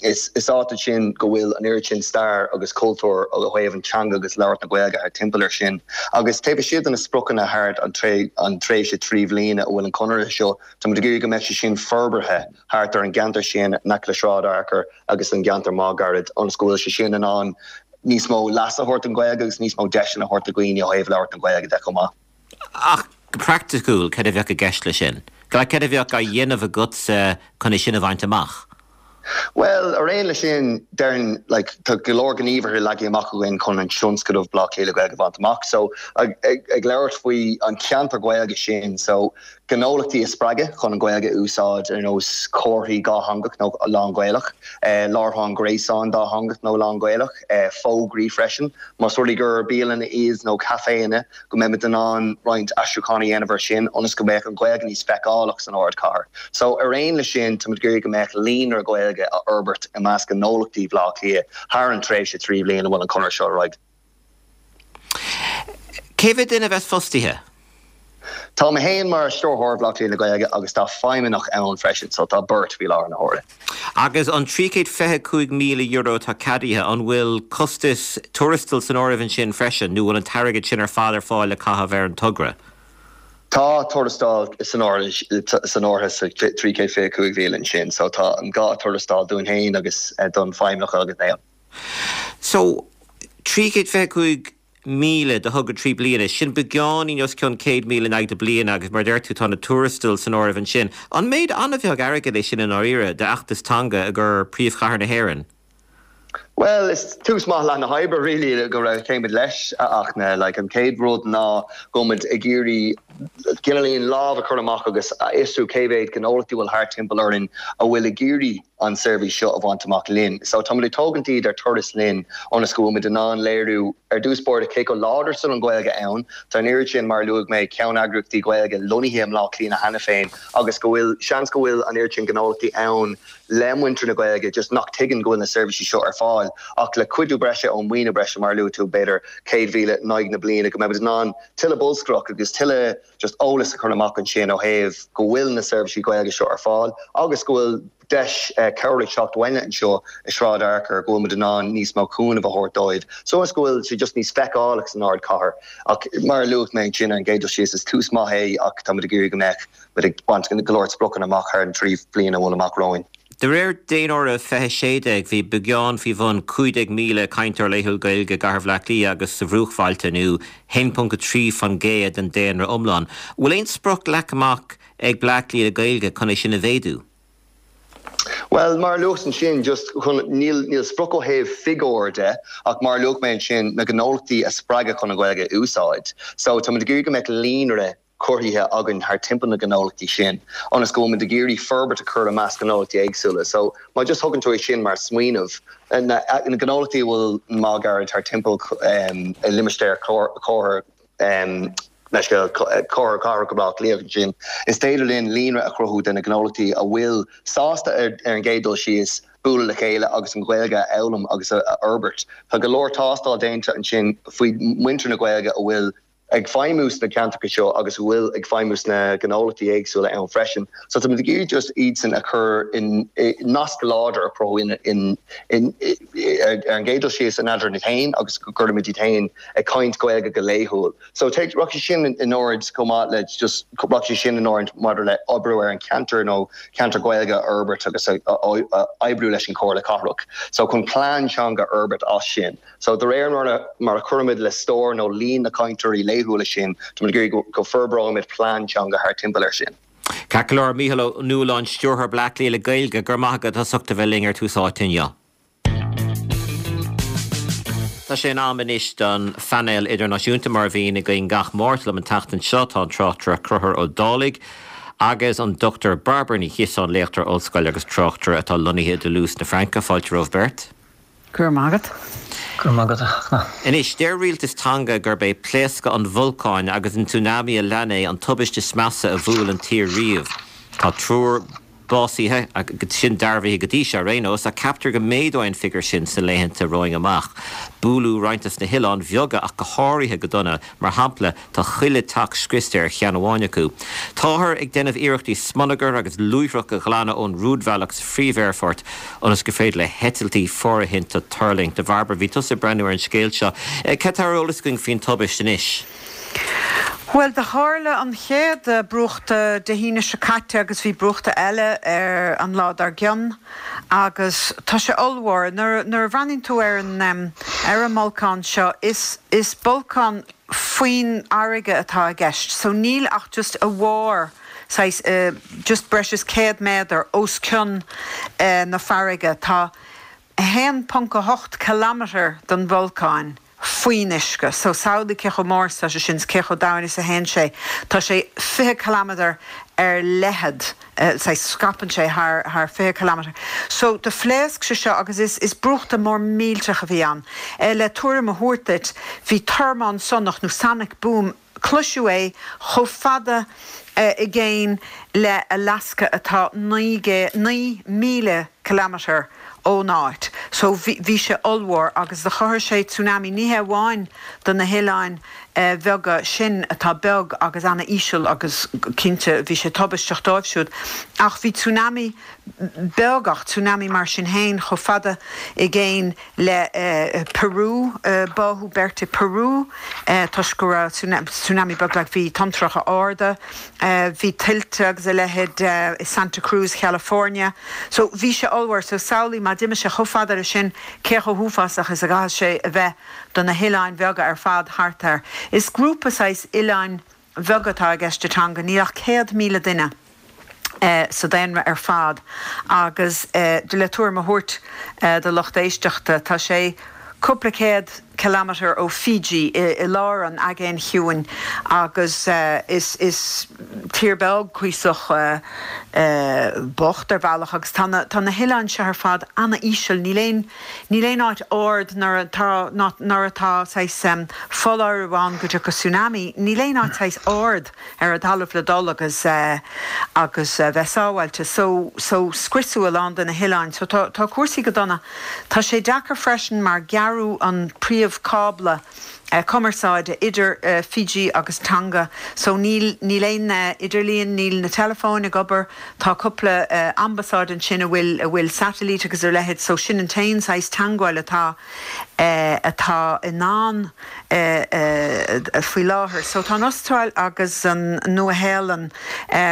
is áit ansin go bhfuil an oiread sin stair agus cultúr ó thaobh an teanga agus labhairt na Gaeilge thart timpeall air sin. Agus taobh istigh de na spriocanna thart an tréimhse 3 bhliana a bhfuil an conradh seo, tá muid ag iarraidh go mbeidh sé sin forbartha thart ar an gceantar sin in aice le Sráid Fhearchair agus an gceantar máguaird ionas go bhfuil sé sin in ann níos mó leas a thabhairt don Ghaeilge agus níos mó deiseanna a thabhairt do dhaoine ó thaobh labhairt na Gaeilge de chomh maith. Ach go praiticiúil, cad a bheadh i gceist leis sin? Cad a bheadh á dhéanamh agatsa chun é sin a bhaint amach? Bhuel, ar aon leis sin, déarfainn, like, tá go leor gníomhartha leagtha amach againn chun an tionscadal Bleá Cliath le Gaeilge a bhaint amach. So, ag, ag labhairt faoi an ceantar Gaeilge sin, so, gnólachtaí a spreagadh chun an Ghaeilge a úsáid ar nós comharthaí dhátheangach nó lán-Ghaelach, láithreán gréasáin dátheangach nó lán-Ghaelach, fógraí freisin, más rud é gur bialanna iad nó caiféanna, go mbeimid in ann roinnt aistriúchán a dhéanamh air sin ionas go mbeadh an Ghaeilge níos feiceálach san ardchathair. So, ar aon leis sin, táimid ag iarraidh go mbeadh líonra Gaeilge a fhorbairt i measc gnólachtaí Bhaile Átha Cliath thar an tréimhse 3 bhliain a bhfuil an conradh seo ar aghaidh. Cé mhéad duine a bheas fostaithe? Tá mé féin mar Stiúrthóir Bhaile Átha Cliath le Gaeilge agus tá feidhmeannach ann freisin, so tá beirt faoi láthair na huaire. Agus an €325,000 atá ceadaithe, an bhfuil costas tuarastail san áireamh ansin freisin nó bhfuil an t-airgead sin ar fad ar fáil le caitheamh ar an togra? Tá tuarastal san áireamh sa 325,000 ansin, so tá an gá tuarastal dúinn féin agus don feidhmeannach agus na. So, 325,000 do thogra 3 bliana, sin beagáinín os cionn 100,000 in aghaidh na bliana agus mar a deir tú tá na tuarastail san áireamh ansin. An méid an-bheag airgid é sin i ndáiríre d'fheachtas teanga i gcomhair príomhchathair na hÉireann? Bhuel, is tús maith leath na hoibre really go raibh céimid leis ach na like an chéad rud ná go bhfuil muid ag iarraidh cineáilín lámh a chur amach agus a fhiosrú cé mhéad gnólachtaí a bhfuil thart timpeall orainn a bhfuil ag iarraidh an seirbhís seo a bhaint amach linn. So táimid ag tógaint iad ar turas linn ionas go bhfuil muid in ann léiriú ar dtús báire cé chomh láidir is atá an Ghaeilge ann. Tá an oiread sin, mar a luaigh mé, ceanneagraíochtaí Gaeilge lonnaithe i mBleá Cliath cheana féin agus go bhfuil, seans go bhfuil an oiread sin gnólachtaí ann le muintir na Gaeilge just nach tuigeann go bhfuil na seirbhísí seo ar fáil ach le cuidiú breise ón maoiniú breise, mar a luaigh tú, b'fhéidir 100,000 in aghaidh na bliana, go mbeimid in ann tuilleadh bolscaireacht agus tuilleadh just eolas a chur amach ansin ó thaobh go bhfuil na seirbhísí Gaeilge seo ar fáil agus go bhfuil deis cabhair ag teacht uainne anseo i Sráid Fhearchair go bhfuil muid in ann níos mó cúnamh a thabhairt dóibh so is go bhfuil sé just níos feiceálach san ardchathair. Ach mar a luaigh mé ansin ar an gcéad dul síos is tús maith é ach tá muid ag iarraidh go mbeadh muid ag baint go leor spriocanna amach thar an 3 bliana a bhfuil amach romhainn. De réir Daonáireamh 2016, bhí beagán faoi bhun 15,000 cainteoir laethúil Gaeilge i gcathair Bhaile Átha Cliath agus sa bhruachbhailte, nó 1.3% den daonra iomlán. An bhfuil aon sprioc leagtha amach ag Bleá Cliath le Gaeilge chun é sin a mhéadú? Bhuel, mar a luas ansin, just chun, níl, níl sprioc ó thaobh figiúr de, ach mar a luaigh mé ansin, na gnólachtaí a spreagadh chun an Ghaeilge a úsáid. So, táimid ag iarraidh go mbeadh líonra cruthaithe againn thar timpeall na gnólachtaí sin, ionas go bhfuil muid ag iarraidh forbairt a chur i measc gnólachtaí éagsúla. So, má just thugann tú é sin mar smaoineamh, na gnólachtaí a bhfuil má gairid thar timpeall i limistéar comhair leis Comhairle Cathrach Bhaile Átha Cliath ansin, is féidir linn líonra a chruthú de na gnólachtaí a bhfuil sásta ar an gcéad dul síos bualadh le chéile agus an Ghaeilge a fhoghlaim agus a fhorbairt. Tá go leor tástáil déanta ansin faoi muintir na Gaeilge a bhfuil ag feidhmiú sna ceantracha seo agus a bhfuil ag feidhmiú sna gnólachtaí éagsúla ann freisin. So tá muid ag iarraidh just iadsan a chur in nasc láidir a chruthú in in ar an gcéad dul síos in eadrainn iad féin agus go gcuirimid iad féin ag caint Gaeilge go laethúil. So take rachaidh sé sin in ord chomh maith le just rachaidh sé sin in ord maidir le oibriú ar an cheantar nó ceantar Gaeilge a fhorbairt agus a oibriú leis an Chomhairle Cathrach. So chun plean teanga a fhorbairt as sin. So de réir mar a mar a chuirimid le stór nó líon na cainteoirí laethúla sin, táimid ag iarraidh go forbróimid plean teanga thar timpeall air sin. Ceart go leor, Mícheál Ó Nualláin, Stiúrthóir Bleá Cliath le Gaeilge, go raibh maith agat as ucht a bheith linn ar Tús Áite inniu. Tá sé in am anois don phainéal idirnáisiúnta mar a bhíonn againn gach Máirt. Liom an tseachtain seo tá an tráchtaire Conchúr Ó Dálaigh agus an Dr Bairbre Ní Chiosáin, léachtóir ollscoile agus tráchtaire atá lonnaithe i dToulouse na Fraince. Fáilte romhaibh beirt. Go raibh maith agat. Go raibh maith agat, a Fhachtna. Anois, deir rialtas Tonga gurb é pléascadh an bholcáin agus an tsunami a lean é an tubaiste is measa a bhuail an tír riamh. Tá triúr básaithe, sin dearbhaithe go dtí seo ar aon nós, ach ceaptar go méadóidh an figiúr sin sna laethanta romhainn amach. Buaileadh roinnt dos na hoileáin bheaga ach go háirithe go dona, mar shampla, tá chuile teach scriosta ar cheann amháin acu. Táthar ag déanamh iarrachtaí smionagar agus luaithreach a ghlanadh ón rúidbhealach sa phríomh-aerfort ionas gur féidir le heitiltí fóirithinte tuirlingt. A Bhairbre, bhí tusa ag breathnú ar an scéal seo. Cad tá ar eolas againn faoin tubaist anois? Bhuel, do tharla an chéad brúchtadh Dé hAoine seo caite agus bhí brúchtadh eile ar an lá dár gcionn agus tá sé ollmhór. Nuair a bhreathnaíonn tú ar an ar an mbolcán seo, is is bolcán faoin fharraige atá i gceist so níl ach just a bharr. saghas just breis is 100 méadar os cionn na farraige. Tá 1.8 kilometre den bholcán faoin uisce. So samhlaigh cé chomh mór is atá sé sin is cé chomh domhain is a théann sé. Tá sé 20 kilometre ar leithead, saghas scaipeann sé thar thar 20 kilometre. So do phléasc sé seo agus is is brúchtadh mór millteach a bhí ann. Le tuairim a thabhairt duit, bhí tormán sonach nó sonic boom, Cloiseadh é chomh fada i gcéin le Alaska atá 9,000 kilometre ón áit. So bhí sé ollmhór agus do chothaigh sé tsunami ní hé amháin do na hoileáin bheaga sin atá beag agus ana-íseal agus cinnte bhí sé tubaisteach dóibh siúd ach bhí tsunami beag ach tsunami mar sin féin chomh fada i gcéin le Peru, báthadh beirt i Peru toisc go raibh tsunami beag like bhí tonntracha arda, bhí tuilte agus a leithéid i Santa Cruz, California. So bhí sé ollmhór. So samhlaigh má d'imigh sé chomh fada leis sin cé chomh huafásach is a gcaithfidh sé a bheith do na hoileáin bheaga ar fad thart air. Is grúpa saghas oileáin bheaga atá i gceist i Tonga, níl ach 100,000 duine sa daonra ar fad agus le tuairim a thabhairt do lucht éisteachta, tá sé cúpla céad kilometre ó Fiji i lár an Aigéin Chiúin agus is tír beag cuíosach bocht ar bhealach agus tá na hoileáin seo ar fad ana-íseal, níl aon Níl aon áit ard nuair atá nuair atá saghas foláireamh ann go dtiocfaidh tsunami, níl aon áit saghas ard ar an talamh le dul agus agus bheith sábháilte. So so scriosadh a lán de na hoileáin. So tá tá cúrsaí go dona. Tá sé deacair freisin mar gearradh an príomh cábla cumarsáide idir Fiji agus Tonga so níl níl aon idirlíon, níl na teileafóin ag obair, tá cúpla ambasáid ansin a bhfuil a bhfuil satailít agus a leithéid so sin an t-aon saghas teangmháil atá atá i ndán faoi láthair. So tá an Astráil agus an Nua-Shéalainn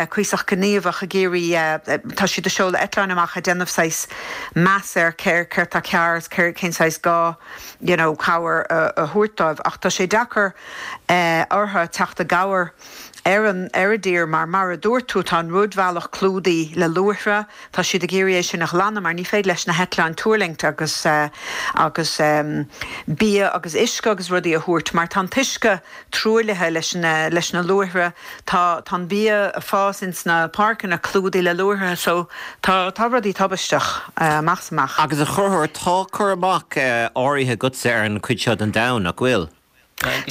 cuíosach gníomhach ag iarraidh, tá siad ag seoladh eitleáin amach ag déanamh saghas meas ar céard atá cearr agus cén saghas gá you know cabhair a thabhairt dóibh ach tá sé deacair orthu teacht i gcabhair ar an ar an dtír mar mar a dúirt tú tá an rúidbhealach clúdaithe le luaithre, tá siad ag iarraidh é sin a ghlanadh mar ní féidir leis na heitleáin tuirlingt agus agus bia agus uisce agus rudaí a thabhairt mar tá an t-uisce truaillithe leis na leis na luaithre. Tá tá an bia ag fás ins na páirceanna clúdaithe le luaithre so tá tá rudaí tubaisteach amach is amach. Agus a Chonchúir, tá cur amach áirithe agatsa ar an chuid seo den domhan, nach bhfuil?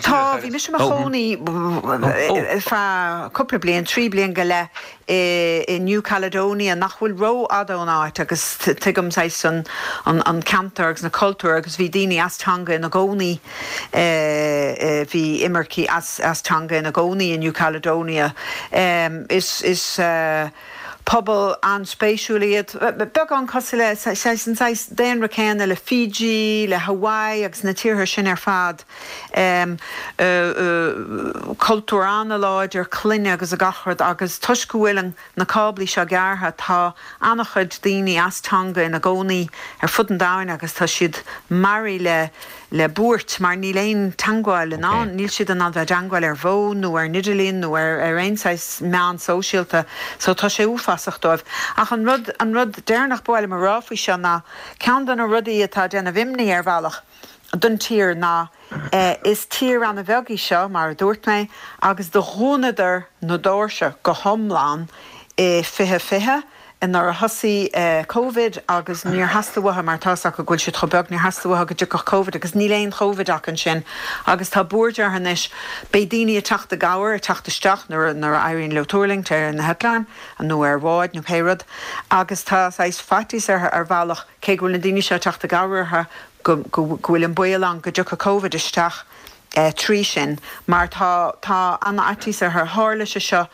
Tá, bhí mise i mo chónaí ar feadh cúpla bliain, 3 bliain go leith, i New Caledonia, nach bhfuil rófhada ón áit agus tuigim saghas an an ceantar agus na cultúir agus bhí daoine as Tonga ina gcónaí Bhí imircigh as Tonga ina gcónaí i New Caledonia. Is pobal an-spéisiúil iad, beagán cosúil le, saghas, an saghas daonra céanna le Fiji, le Hawaii agus na tíortha sin ar fad. Cultúr an-láidir, clainne agus gach rud agus toisc go bhfuil an na cáblaí seo gearrtha, tá an-chuid daoine as Tonga ina gcónaí ar fud an domhain agus tá siad maraithe le le buairt mar níl aon teangmháil in ann, níl siad in ann bheith i dteangmháil ar bhfón nó ar an idirlíon nó ar ar aon saghas meán sóisialta so tá sé uafásach dóibh. Ach an rud an rud deireanach ba mhaith liom a rá faoi seo ná ceann de na rudaí atá ag déanamh imní ar bhealach don tír ná Is tír ana-bheag í seo, mar a dúirt mé, agus do dhúnadar na doirse go hiomlán i 2020 nuair a thosaigh Covid agus níor theastaigh uathu, mar tá's acu go bhfuil siad chomh beag, níor theastaigh uathu go dtiocfadh Covid agus níl aon Chovid acu ansin agus tá buairt orthu anois. Beidh daoine ag teacht i gcabhair, ag teacht isteach nuair a éiríonn leo tuirlingt ar na heitleáin nó ar bháid nó pé rud agus tá saghas faitíos orthu ar bhealach cé go bhfuil na daoine seo ag teacht i gcabhair orthu go bhfuil an baol ann go dtiocfaidh Covid isteach trí sin mar tá tá an-fhaitíos orthu. Tharla sé seo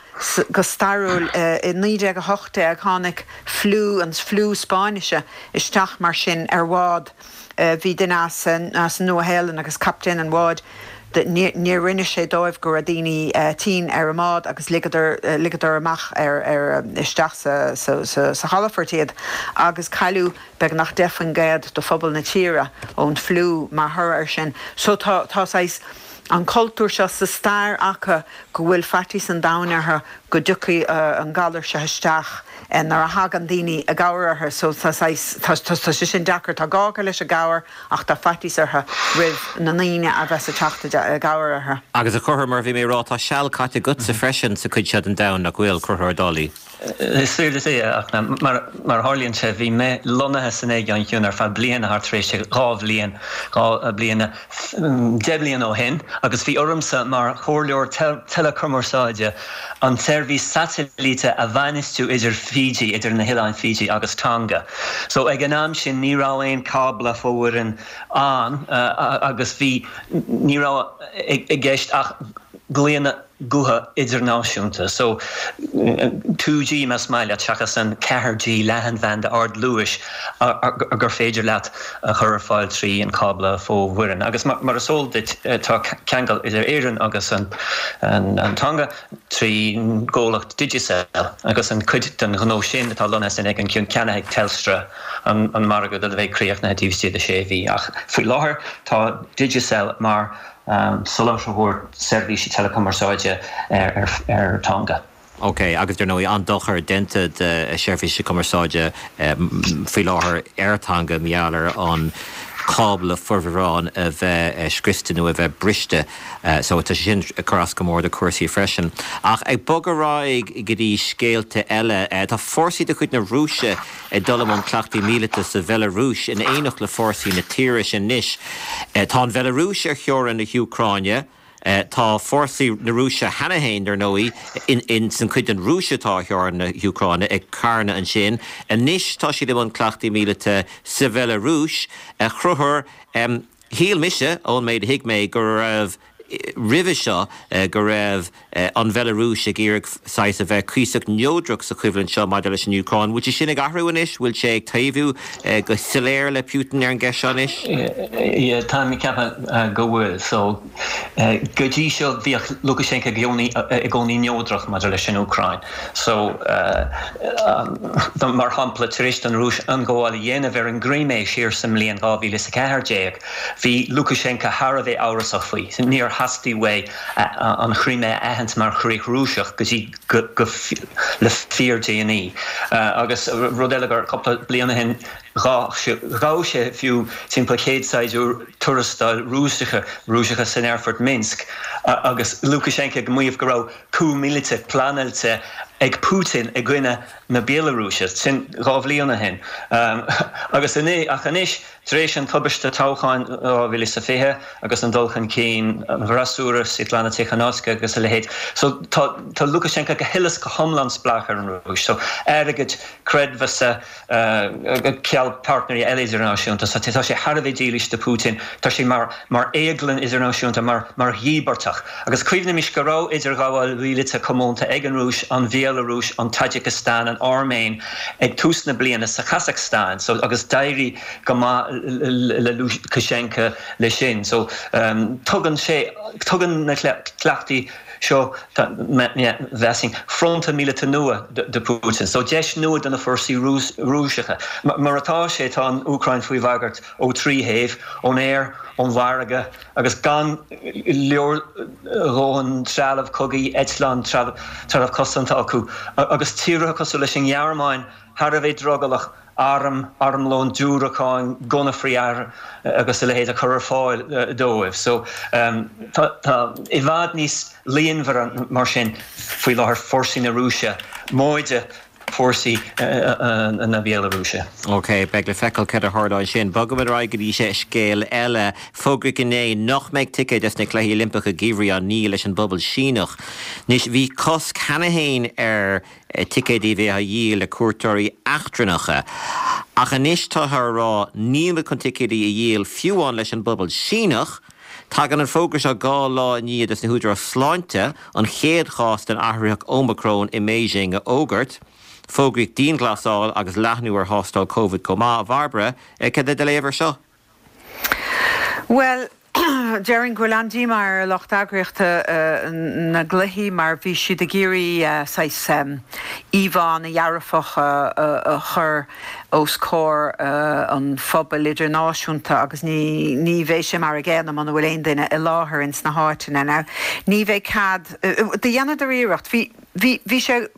go stairiúil i 1918, tháinig fliú, an fliú Spáinnise isteach mar sin ar bhád. Bhí duine as an Nua-Shéalainn agus captaen an bháid, níor inis sé dóibh go raibh daoine tinn ar an mbád agus ligeadar ligeadar amach ar ar isteach sa sa sa chalafort iad agus cailleadh beagnach 10% de phobal na tíre ón fliú mar thoradh air sin. So tá, tá saghas. an cultúr seo sa stair acu go bhfuil faitíos an domhain orthu go dtiocfaidh an galar seo isteach nuair a thagann daoine i gcabhair orthu so tá saghas, tá, tá sé sin deacair. Tá gá acu leis an gcabhair ach tá faitíos orthu roimh na ndaoine a bheas ag teacht i gcabhair orthu. Agus a Chonchúir, mar a bhí mé ag rá, tá seal caite agatsa freisin sa chuid seo den domhan, nach bhfuil, Conchúr Ó Dálaigh? Is fíor duit é, ach mar a tharlaíonn sé, bhí mé lonnaithe san Aigéan Ciúin ar feadh bliana thart tar éis 2 bhliain, 2 bliana, 10 bliana ó shin, agus bhí ormsa mar chomhairleoir teileachumarsáide an tseirbhís satailíte a bhainistiú idir Fiji, idir na hOileáin Fiji agus Tonga. So ag an am sin ní raibh aon cábla fomhuireáin ann agus bhí, ní raibh i gceist ach glaonna gutha idirnáisiúnta. So, 2G más maith leat, seachas an 4G leathanbhanda ardluais gur féidir leat a chur ar fáil trí an cábla fomhuireáin. Agus mar is eol duit, tá ceangal idir Éirinn agus an Tonga trí gcomhlacht Digicel agus an cuid den ghnó sin atá lonnaithe san Aigéan Ciúin ceannaithe ag Telstra, an margadh a bheidh críochnaithe taobh istigh de sé mhí. Ach faoi láthair tá Digicel mar soláthróir seirbhísí teileachumarsáide ar Tonga. Ok, agus dar ndóigh an-dochar déanta do sheirbhísí cumarsáide faoi láthair ar Tonga mar gheall ar an cábla fomhuireáin a bheith scriosta nó a bheith briste. So tá sé sin ag cur as go mór do chúrsaí freisin. Ach ag bogadh ar aghaidh go dtí scéalta eile, tá fórsaí de chuid na Rúise ag dul i mbun cleachtaí míleata sa Bheilearúis in éineacht le fórsaí na tíre sin anois. Tá an Bheilearúis ar theorainn na hÚcráine. Tá fórsaí na Rúise cheana féin, dar ndóigh, in san chuid den Rúis atá ar theorainn na hÚcráine, ag carnadh ansin. Anois tá siad i mbun cleachtaí míleata sa Bheilearúis. A Chonchúir, shíl mise, ón méid a thuig mé, go raibh roimhe seo go raibh an Bheilearúis ag iarraidh saghas a bheith cuíosach neodrach sa choimhlint seo maidir leis an Úcráin. Bhfuil sé sin ag athrú anois? Bhfuil sé ag taobhú go soiléir le Putin ar an gceist seo anois? Yeah, táim ag ceapadh go bhfuil. So, go dtí seo bhíodh Lukashenko i gcónaí neodrach maidir leis an Úcráin. So, mar shampla, tar éis don Rúis ionghabháil a dhéanamh ar an gCrimé siar sa mbliain 2014, Bhí Lukashenko thar a bheith amhrasach faoi. Níor theastaigh uaidh an Chrimé a aithint mar chríoch Rúiseach go dtí go le fíordhéanaí. Agus rud eile gur cúpla bliain ó shin ghabh sé fiú timpeall 100 saighdiúir tuarastail Rúiseacha Rúiseacha san aerfort Minsk agus Lukashenko ag maíomh go raibh coup míleata pleanáilte ag Putin i gcoinne na Béalarúise. Sin 2 bhliain ó shin. Agus ach anois Tar éis an tubaiste toghcháin 2020 agus an dul chun cinn an fhreasúra, Svetlana Tikhanovskaya agus a leithéid, so tá tá Lukashenko go huile is go hiomlán spleách ar an Rúis. So airgead, creidmheasa, ceal páirtnéirí eile idirnáisiúnta. So tá sé thar a bheith dílis do Putin. Tá sé mar mar éaglann idirnáisiúnta, mar mar dhíbeartach. Agus cuimhnímis go raibh idirghabháil mhíleata comónta ag an Rúis, an Bhéalarúis, an Taidsiceastáin, an Airméin ag tús na bliana sa Chasacstáin. So agus d'éirigh go maith le Lukashenko leis sin. So tugann sé, tugann na cleachtaí seo, mheasfainn, fronta míleata nua do Putin. So deis nua do na fórsaí Rúiseacha. Mar atá sé, tá an Úcráin faoi bhagairt ó thrí thaobh, ón aer, ón bhfarraige agus gan leordhóthain trealamh cogaidh, eitleán, trealamh cosanta acu. Agus tíortha cosúil leis an nGearmáin thar a bheith drogallach airm, armlón, diúracáin, gunna frith-aeir agus a leithéid a chur ar fáil dóibh. So tá i bhfad níos líonmhaire mar sin faoi láthair fórsaí na Rúise móide fórsaí na Béalarúise. Ok, beidh le feiceáil céard a tharlóidh ansin. Bogaimid ar aghaidh go dtí scéal eile. Fógraíodh inné nach mbeidh ticéid dos na Cluichí Oilimpeacha Geimhridh á ndíol leis an bpobal Síneach. Anois, bhí cosc cheana féin ar ticéidí a bheith á dhíol le cuairteoirí eachtrannacha. Ach anois táthar a rá níl muid chun ticéidí a dhíol fiú amháin leis an bpobal Síneach. Tagann an fógra seo 2 lá i ndiaidh dos na húdaráis sláinte an chéad chás den athraitheach Ómacrón i mBeijing a fhógairt. Fógraíodh dianghlasáil agus leathnú ar thástáil Covid chomh maith. A Bhairbre, cad é do léamh ar seo? Bhuel. Déarfainn go bhfuil an-díomá ar lucht eagraíochta na gcluichí mar bhí siad ag iarraidh saghas íomhá ana-dhearfach a chur os comhair an phobail idirnáisiúnta agus ní ní bheidh sé mar a gcéanna muna bhfuil aon duine i láthair ins na háiteanna. Now ní bheidh cead, do dheineadar iarracht, bhí, bhí, bhí sé,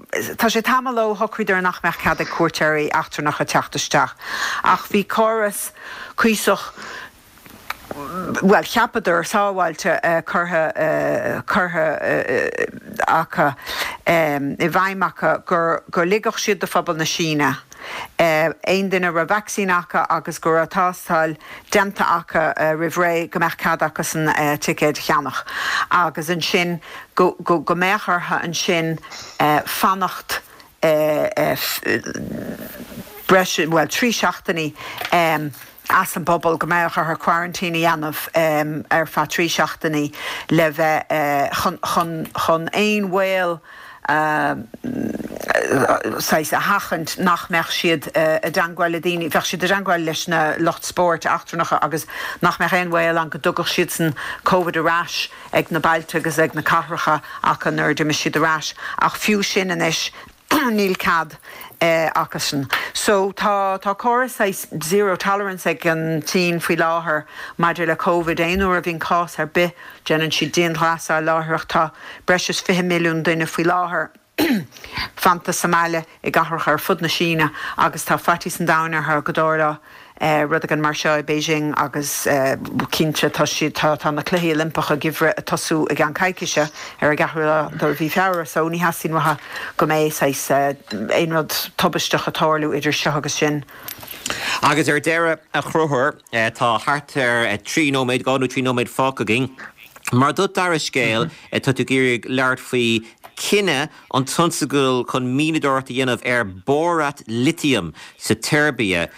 tá sé tamall ó shocraíodar nach mbeadh cead ag cuairteoirí eachtrannacha teacht isteach ach bhí córas cuíosach, bhuel, cheapadar, sábháilte curtha, curtha acu, i bhfeidhm acu gur, go ligfeadh siad do phobal na Síne, aon duine a raibh vacsaín acu agus go raibh tástáil déanta acu roimh ré, go mbeadh cead acusan ticéid a cheannach agus ansin go, go, go mbeadh orthu ansin fanacht breis, bhuel, 3 seachtainí as an bpobal, go mbeadh orthu quarantine a dhéanamh ar feadh 3 seachtainí le bheith, chun, chun, chun aon bhaol saghas a sheachaint nach mbeadh siad i dteangmháil le daoine, bheadh siad i dteangmháil leis na lucht spóirt eachtrannacha agus nach mbeadh aon bhaol ann go dtugadh siadsan Covid ar ais ag na bailte agus ag na cathracha acu nuair a d'imigh siad ar ais ach fiú sin anois níl cead acusan. So tá tá córas saghas zero tolerance ag an tSín faoi láthair maidir le Covid. Aon uair a bhíonn cás ar bith déanann siad dianghlasáil láithreach. Tá breis is 20 milliún duine faoi láthair. fanta sa mbaile i gcathracha ar fud na Síne agus tá faitíos an domhain orthu go dtarlódh rud éigin mar seo i Beijing agus cinnte tá siad, tá, tá na Cluichí Oilimpeacha Geimhridh ag tosú i gceann coicíse ar an gceathrú lá de mhí Feabhra so ní theastaíonn uathu go mbeidh saghas aon rud tubaisteach ag tarlú idir seo agus sin. Agus ar deireadh, a Chonchúir, tá thart ar 3 nóiméad, 2 nó 3 nóiméad fágtha againn. Mar do dara scéal, tá tú ag iarraidh labhairt faoi cinneadh an tionscadal chun mianadóireacht a dhéanamh ar bórat litiam sa tSeirbia.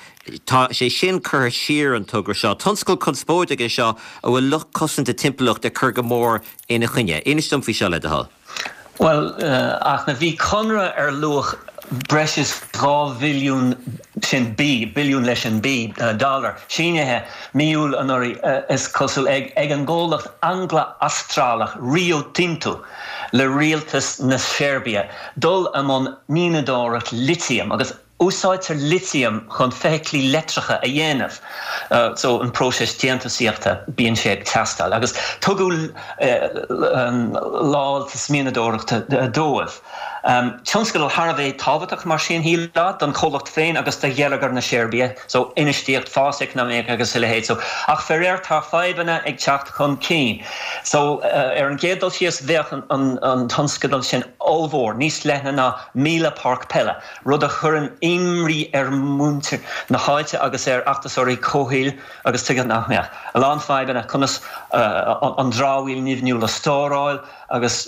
Tá sé sin curtha siar, an togra seo. Tionscal conspóideach é seo a bhfuil lucht cosanta timpeallachta ag cur go mór ina choinne. Inis dom faoi seo, le do thoil. Bhuel, ach na, bhí conradh ar luach breis is 2 bhilliún, sin B, billiún leis an B, dollar, sínithe mí Iúil anuraidh, is cosúil, ag ag an gcomhlacht Angla-Astrálach Rio Tinto le rialtas na Seirbia dul i mbun mianadóireacht litiam agus Úsáidtear litiam chun feithiclí leictreacha a dhéanamh, so an próiseas déantúsaíochta, bíonn sé ag teastáil. Agus tugadh lamháltas mianadóireachta dóibh. Tionscadal thar a bheith tábhachtach mar sin, shílfeá, don chomhlacht féin agus do gheilleagar na Seirbia, so infheistíocht, fás eacnamaíoch agus a leithéid. So, ach faraor tá fadhbanna ag teacht chun cinn. So, ar an gcéad dul síos, bheadh an tionscadal sin ollmhór, níos leithne ná 1,000 páirc peile. rud a chuireann imní ar mhuintir na háite agus ar fheachtasóirí comhshaoil agus tuige nach mbeadh? A lán fadhbanna, conas an dramhaíl nimhniúil a stóráil agus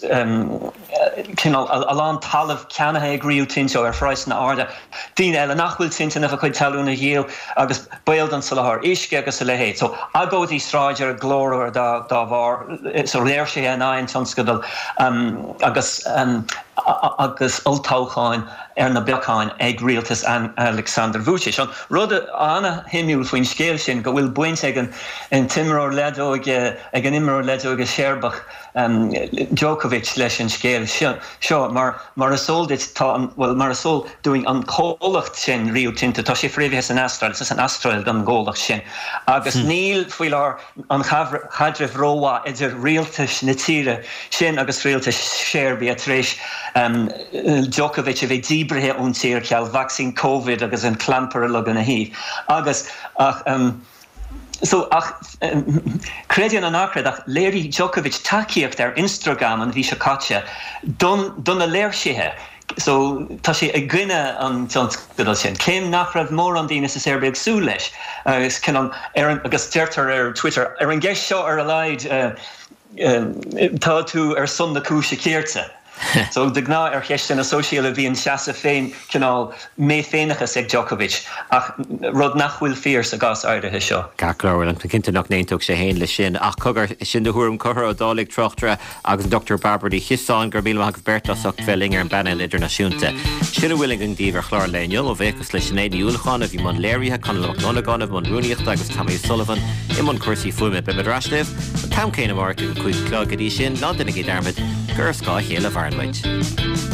cineál a lán talaimh ceannaithe ag Rio Tinto ar phraghsanna arda, daoine eile nach bhfuil toilteanach a gcuid talún a dhíol agus baol don soláthar uisce agus a leithéid. So agóidí sráide glórmhar dá bharr, so léirsithe in aghaidh an tionscadail agus. agus olltoghcháin ar na bacáin ag rialtas Aleksandar Vučić. An rud ana-shuimiúil faoin scéal sin go bhfuil baint ag an t-imreoir leadóige, ag an imreoir leadóige Seirbeach Djokovic leis an scéal seo mar mar is eol duit tá an, bhuel mar is eol dúinn an comhlacht sin Rio Tinto, tá sé fréamhaithe san Astráil, is as an Astráil don gcomhlacht sin agus níl faoi láthair an chaidreamh rómhaith idir rialtais na tíre sin agus rialtas Sheirbia tar éis Djokovic a bheith díbrithe ón tír cheal vacsaín Covid agus an clampar uilig ina thaobh agus ach so ach creid é nó ná creid ach léirigh Djokovic tacaíocht ar Instagram an mhí seo caite don do na léirsithe. So, tá sé i gcoinne an tionscadail sin, céim nach raibh mórán daoine sa Seirbia ag súil leis. Agus cineál, ar an, agus deirtear ar Twitter, ar an gceist seo ar a laghad, tá tú ar son na cúise cirte. So, de ghnáth ar cheisteanna sóisialta bíonn seasamh féin, cineál mé-féineachas ag Djokovic, ach rud nach bhfuil fíor sa gcás áirithe seo. Ceart go leor, bhuel, tá cinnte nach n-aontódh sé féin leis sin. Ach cogar, sin do thuairim Conchúr Ó Dálaigh, tráchtaire, agus an Dr Bairbre Ní Chiosáin, go raibh míle maith agaibh beirt as ucht bheith linn ar an bpainéal idirnáisiúnta. Sin a bhfuil againn daoibh ar chlár an lae inniu. Mo bhuíochas le Sinéad Ní Uallacháin a bhí i mbun léirithe, Conall Mac Dhonnagáin i mbun rúnaíochta agus Tommy O'Sullivan i mbun cúrsaí fuaime. Beimid ar ais libh an t-am céanna amárach ag a 5 a chlog. Go dtí sin, ná déanaigí dearmad gur ar scáth a chéile a mhaireann muid.